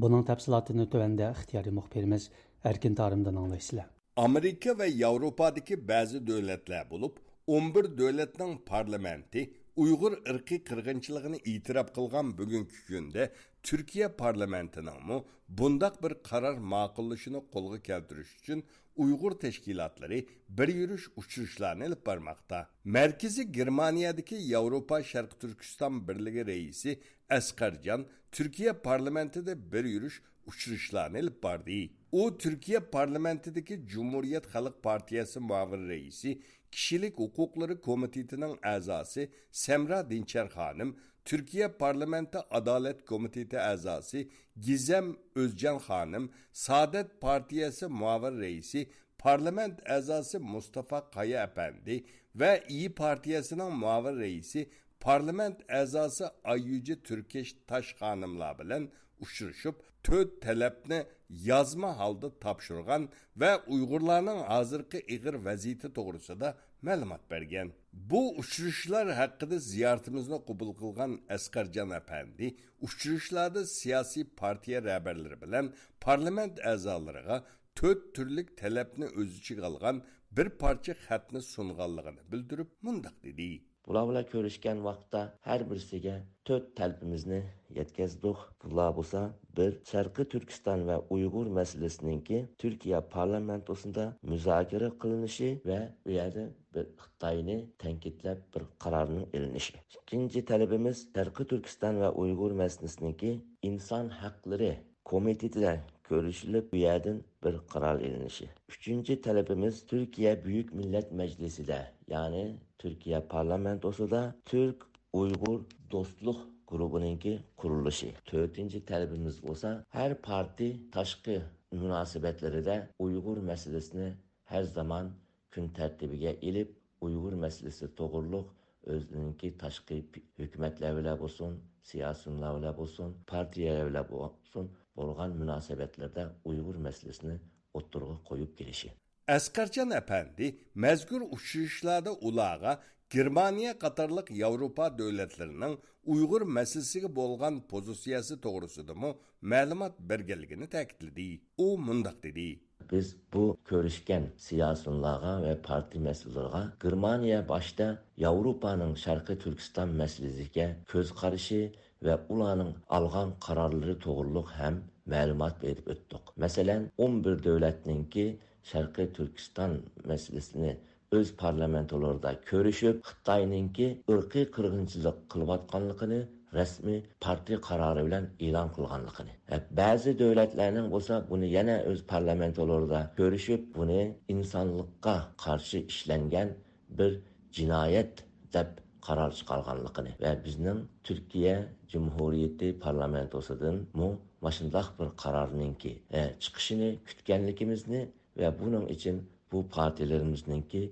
بۇنىڭ تەپسىلاتىنى تۆۋەندە ئىختىيارىي مۇخبىرىمىز ئەركىن تارىمدىن ئاڭلايسىلەر. ئامېرىكا ۋە ياۋروپادىكى بەزى دۆلەتلەر بولۇپ، ئون بىر دۆلەتنىڭ پارلامېنتى ئۇيغۇر ئىرقىي قىرغىنچىلىقىنى ئېتىراپ قىلغان بۈگۈنكى كۈندە، تۈركىيە پارلامېنتىنىڭمۇ بۇنداق بىر قارار ماقۇللىشىنى قولغا كەلتۈرۈش ئۈچۈن ئۇيغۇر تەشكىلاتلىرى بىر يۈرۈش ئۇچرىشىشلارنى ئېلىپ بارماقتا. مەركىزى گېرمانىيەدىكى ياۋروپا شەرقىي تۈركىستان بىرلىكى رەئىسى ئەسقەرجان تۈركىيە پارلامېنتىدا بىر يۈرۈش ئۇچرىشىشلارنى ئېلىپ باردى. ئۇ تۈركىيە پارلامېنتىدىكى جۇمھۇرىيەت خەلق پارتىيەسى مۇئاۋىن رەئىسى، كىشىلىك ھوقۇقلىرى كومىتېتىنىڭ ئەزاسى سەمرا دىنچەر خانىم، تۈركىيە پارلامېنتى ئادالەت كومىتېتى ئەزاسى گىزەم ئۆزجان خانىم، سائادەت پارتىيەسى مۇئاۋىن رەئىسى، پارلامېنت ئەزاسى مۇستافا قايا ئەپەندى ۋە ئىيى پارتىيەسىنىڭ مۇئاۋىن رەئىسى، پارلامېنت ئەزاسى ئاييۈجى تۈركەش تاش خانىملار بىلەن ئۇچرىشىپ، تۆت تەلەپنى يازما ھالدا تاپشۇرغان ۋە ئۇيغۇرلارنىڭ ھازىرقى ئېغىر ۋەزىيىتى توغرىسىدا مەلۇمات بەرگەن. بۇ ئۇچرىشىشلار ھەققىدە زىيارىتىمىزنى قوبۇل قىلغان ئەسقەرجان ئەپەندى ئۇچرىشىشلاردا سىياسىي پارتىيە رەھبەرلىرى بىلەن پارلامېنت ئەزالىرىغا تۆت تۈرلۈك تەلەپنى ئۆز ئىچىگە ئالغان بىر پارچە خەتنى سۇنغانلىقىنى بىلدۈرۈپ، مۇنداق دېدى. بۇلار بىلەن كۆرۈشكەن ۋاقىتتا ھەر بىرسىگە تۆت تەلىپىمىزنى يەتكۈزدۇق. بۇلار بولسا، بىر، شەرقىي تۈركىستان ۋە ئۇيغۇر مەسىلىسىنىڭكى تۈركىيە پارلامېنتوسىدا مۇزاكىرە قىلىنىشى ۋە ئۇ يەردە بىر خىتاينى تەنقىدلەپ بىر قارارنىڭ ئېلىنىشى. ئىككىنچى تەلىپىمىز، شەرقىي تۈركىستان ۋە ئۇيغۇر مەسىلىسىنىڭكى ئىنسان ھەقلىرى كومىتېتىدە كۆرۈشۈلۈپ، بۇ يەردىن بىر قارار ئېلىنىشى. ئۈچىنچى تەلىپىمىز، تۈركىيە بۈيۈك مىللەت مەجلىسىدە، يەنى تۈركىيە پارلامېنتوسىدا تۈرك ئۇيغۇر دوستلۇق گۇرۇپپىنىڭكى قۇرۇلۇشى. تۆتىنچى تەلىپىمىز بولسا، ھەر پارتىي تاشقى مۇناسىۋەتلىرىدە ئۇيغۇر مەسىلىسىنى ھەر زامان كۈن تەرتىپىگە ئېلىپ، ئۇيغۇر مەسىلىسى توغرۇلۇق ئۆزىنىڭكى تاشقى پى-، ھۆكۈمەتلەر بىلەن بولسۇن، سىياسىيونلار بىلەن بولسۇن، پارتىيەلەر بىلەن بولسۇن، بولغان مۇناسىۋەتلەردە ئۇيغۇر مەسىلىسىنى ئوتتۇرىغا قويۇپ كېلىشى. ئەسقەرجان ئەپەندى مەزكۇر ئۇچرىشىشلاردا ئۇلارغا گېرمانىيە قاتارلىق ياۋروپا دۆلەتلىرىنىڭ ئۇيغۇر مەسىلىسىگە بولغان پوزىتسىيەسى توغرىسىدىمۇ مەلۇمات بەرگەنلىكىنى تەكىتلىدى. ئۇ مۇنداق دېدى. بىز بۇ كۆرۈشكەن سىياسىيونلارغا ۋە پارتىيە مەسئۇللىرىغا گېرمانىيە باشتا ياۋروپانىڭ شەرقىي تۈركىستان مەسىلىسىگە كۆز قارىشى ۋە ئۇلارنىڭ ئالغان قارارلىرى توغرۇلۇق ھەم مەلۇمات بېرىپ ئۆتتۇق. مەسىلەن، ئون بىر دۆلەتنىڭكى شەرقىي تۈركىستان مەسىلىسىنى ئۆز پارلامېنتلىرىدا كۆرۈشۈپ، خىتاينىڭكى ئىرقىي قىرغىنچىلىق قىلىۋاتقانلىقىنى رەسمىي پارتىيە قارارى بىلەن ئېلان قىلغانلىقىنى، بەزى دۆلەتلەرنىڭ بولسا بۇنى يەنە ئۆز پارلامېنتلىرىدا كۆرۈشۈپ، بۇنى ئىنسانلىققا قارشى ئىشلەنگەن بىر جىنايەت دەپ قارار چىقارغانلىقىنى ۋە بىزنىڭ تۈركىيە جۇمھۇرىيىتى پارلامېنتوسىدىنمۇ ماشۇنداق بىر قارارنىڭكى، ئە، چىقىشىنى كۈتكەنلىكىمىزنى ۋە بۇنىڭ ئۈچۈن بۇ پارتىيەلىرىمىزنىڭكى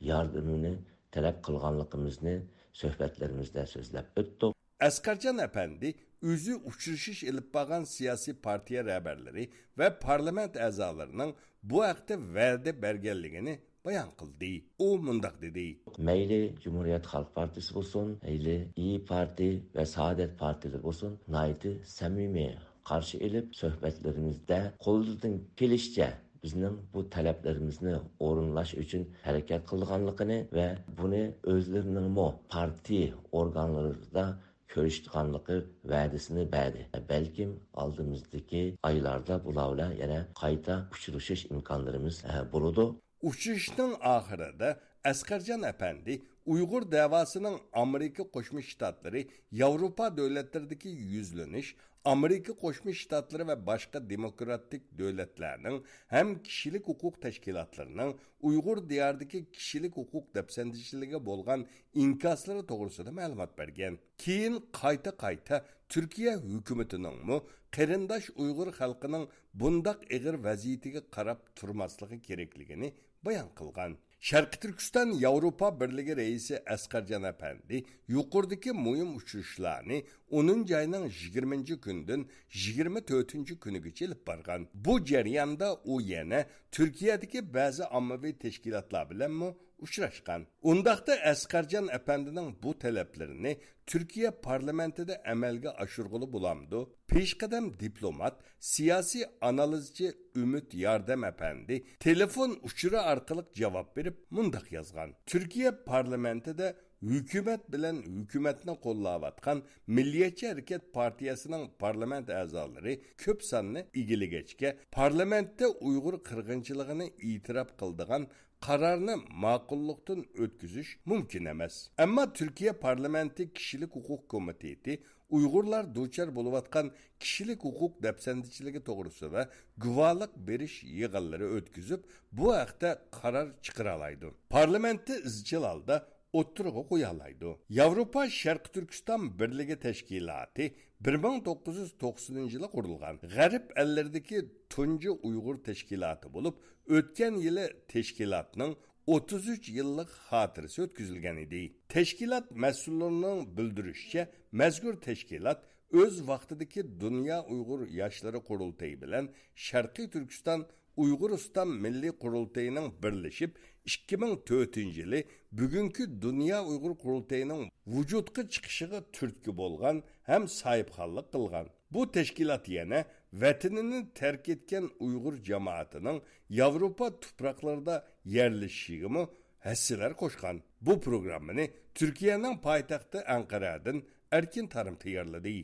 ياردىمىنى تەلەپ قىلغانلىقىمىزنى سۆھبەتلىرىمىزدە سۆزلەپ ئۆتتۇق. ئەسقەرجان ئەپەندى ئۆزى ئۇچرىشىش ئېلىپ بارغان سىياسىي پارتىيە رەھبەرلىرى ۋە پارلامېنت ئەزالىرىنىڭ بۇ ھەقتە ۋەدە بەرگەنلىكىنى بايان قىلدى. ئۇ مۇنداق دېدى. مەيلى جۇمھۇرىيەت خەلق پارتىيىسى بولسۇن، مەيلى ئىيى پارتىي ۋە سائادەت پارتىيىلىرى بولسۇن، ناھايىتى سەمىمىي قارشى ئېلىپ، سۆھبەتلىرىمىزدە قولىدىن كېلىشىچە بىزنىڭ بۇ تەلەپلىرىمىزنى ئورۇنلاش ئۈچۈن ھەرىكەت قىلىدىغانلىقىنى ۋە بۇنى ئۆزلىرىنىڭمۇ پارتىيە ئورگانلىرىدا كۆرۈشىدىغانلىقى ۋەدىسىنى بەردى. بەلكىم ئالدىمىزدىكى ئايلاردا بۇلار بىلەن يەنە قايتا ئۇچرىشىش ئىمكانلىرىمىز، ئە، بولىدۇ. ئۇچرىشىشنىڭ ئاخىرىدا ئەسقەرجان ئەپەندى ئۇيغۇر دەۋاسىنىڭ ئامېرىكا قوشما شتاتلىرى، ياۋروپا دۆلەتلىرىدىكى يۈزلىنىش، ئامېرىكا قوشما شتاتلىرى ۋە باشقا دېموكراتىك دۆلەتلەرنىڭ ھەم كىشىلىك ھوقۇق تەشكىلاتلىرىنىڭ ئۇيغۇر دىيارىدىكى كىشىلىك ھوقۇق دەپسەندىچىلىكىگە بولغان ئىنكاسلىرى توغرىسىدا مەلۇمات بەرگەن. كېيىن قايتا-قايتا تۈركىيە ھۆكۈمىتىنىڭمۇ قېرىنداش ئۇيغۇر خەلقىنىڭ بۇنداق ئېغىر ۋەزىيىتىگە قاراپ تۇرماسلىقى كېرەكلىكىنى بايان قىلغان. شەرقىي تۈركىستان ياۋروپا بىرلىكى رەئىسى ئەسقەرجان ئەپەندى يۇقىرىدىكى مۇھىم ئۇچرىشىشلارنى ئونىنچى ئاينىڭ يىگىرمىنچى كۈنىدىن يىگىرمە تۆتىنچى كۈنىگىچە ئېلىپ بارغان. بۇ جەرياندا ئۇ يەنە تۈركىيەدىكى بەزى ئاممىۋى تەشكىلاتلار بىلەنمۇ ئۇچراشقان. ئۇنداقتا ئەسقەرجان ئەپەندىنىڭ بۇ تەلەپلىرىنى تۈركىيە پارلامېنتىدا ئەمەلگە ئاشۇرغىلى بولامدۇ؟ پېشقەدەم دىپلومات، سىياسىي ئانالىزچى ئۈمىد ياردەم ئەپەندى تېلېفون ئۇچۇرى ئارقىلىق جاۋاب بېرىپ مۇنداق يازغان: تۈركىيە پارلامېنتىدا ھۆكۈمەت بىلەن ھۆكۈمەتنى قوللاۋاتقان مىللىيەتچى ھەرىكەت پارتىيەسىنىڭ پارلامېنت ئەزالىرى كۆپ ساننى ئىگىلىگەچكە، پارلامېنتتا ئۇيغۇر قىرغىنچىلىقىنى ئېتىراپ قىلىدىغان قارارنى ماقۇللۇقتىن ئۆتكۈزۈش مۇمكىن ئەمەس. ئەمما تۈركىيە پارلامېنتى كىشىلىك ھوقۇق كومىتېتى ئۇيغۇرلار دۇچار بولۇۋاتقان كىشىلىك ھوقۇق دەپسەندىچىلىكى توغرىسىدا گۇۋاھلىق بېرىش يىغىنلىرى ئۆتكۈزۈپ، بۇ ھەقتە قارار چىقىرالايدۇ. پارلامېنتتا ئىزچىل ھالدا ئوتتۇرىغا قويالايدۇ. ياۋروپا شەرقىي تۈركىستان بىرلىكى تەشكىلاتى بىر مىڭ توققۇز يۈز توقسىنىنچى يىلى قۇرۇلغان. غەرب ئەللىرىدىكى تۇنجى ئۇيغۇر تەشكىلاتى بولۇپ، ئۆتكەن يىلى تەشكىلاتنىڭ ئوتتۇز ئۈچ يىللىق خاتىرىسى ئۆتكۈزۈلگەن ئىدى. تەشكىلات مەسئۇللىرىنىڭ بىلدۈرۈشىچە، مەزكۇر تەشكىلات ئۆز ۋاقتىدىكى دۇنيا ئۇيغۇر ياشلىرى قۇرۇلتىيى بىلەن شەرقىي تۈركىستان ئۇيغۇرىستان مىللىي قۇرۇلتىيىنىڭ بىرلىشىپ، ئىككى مىڭ تۆتىنچى يىلى بۈگۈنكى دۇنيا ئۇيغۇر قۇرۇلتىيىنىڭ ۋۇجۇدقا چىقىشىغا تۈرتكە بولغان ھەم ساھىبخانلىق قىلغان. بۇ تەشكىلات يەنە ۋەتىنىنى تەرك ئەتكەن ئۇيغۇر جامائىتىنىڭ ياۋروپا تۇپراقلىرىدا يەرلىشىشىگىمۇ ھەسسىلەر قوشقان. بۇ پروگراممىنى تۈركىيەنىڭ پايتەختى ئەنقەرەدىن ئەركىن تارىم تەييارلىدى.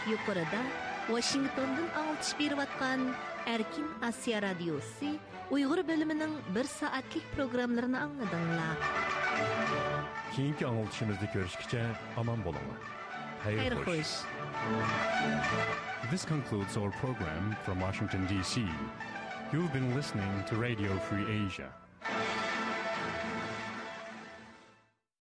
يۇقىرىدا ۋاشىنگتوندىن ئاڭلىتىش بېرىۋاتقان ئەركىن ئاسىيا رادىيوسى ئۇيغۇر بۆلۈمىنىڭ بىر سائەتلىك پروگراممىلىرىنى ئاڭلىدىڭلار. كېيىنكى ئاڭلىتىشىمىزدا كۆرۈشكىچە ئامان بولۇڭلار. خەير خەير خوش. خوش. This concludes our program from Washington, D C. You've been listening to Radio Free Asia.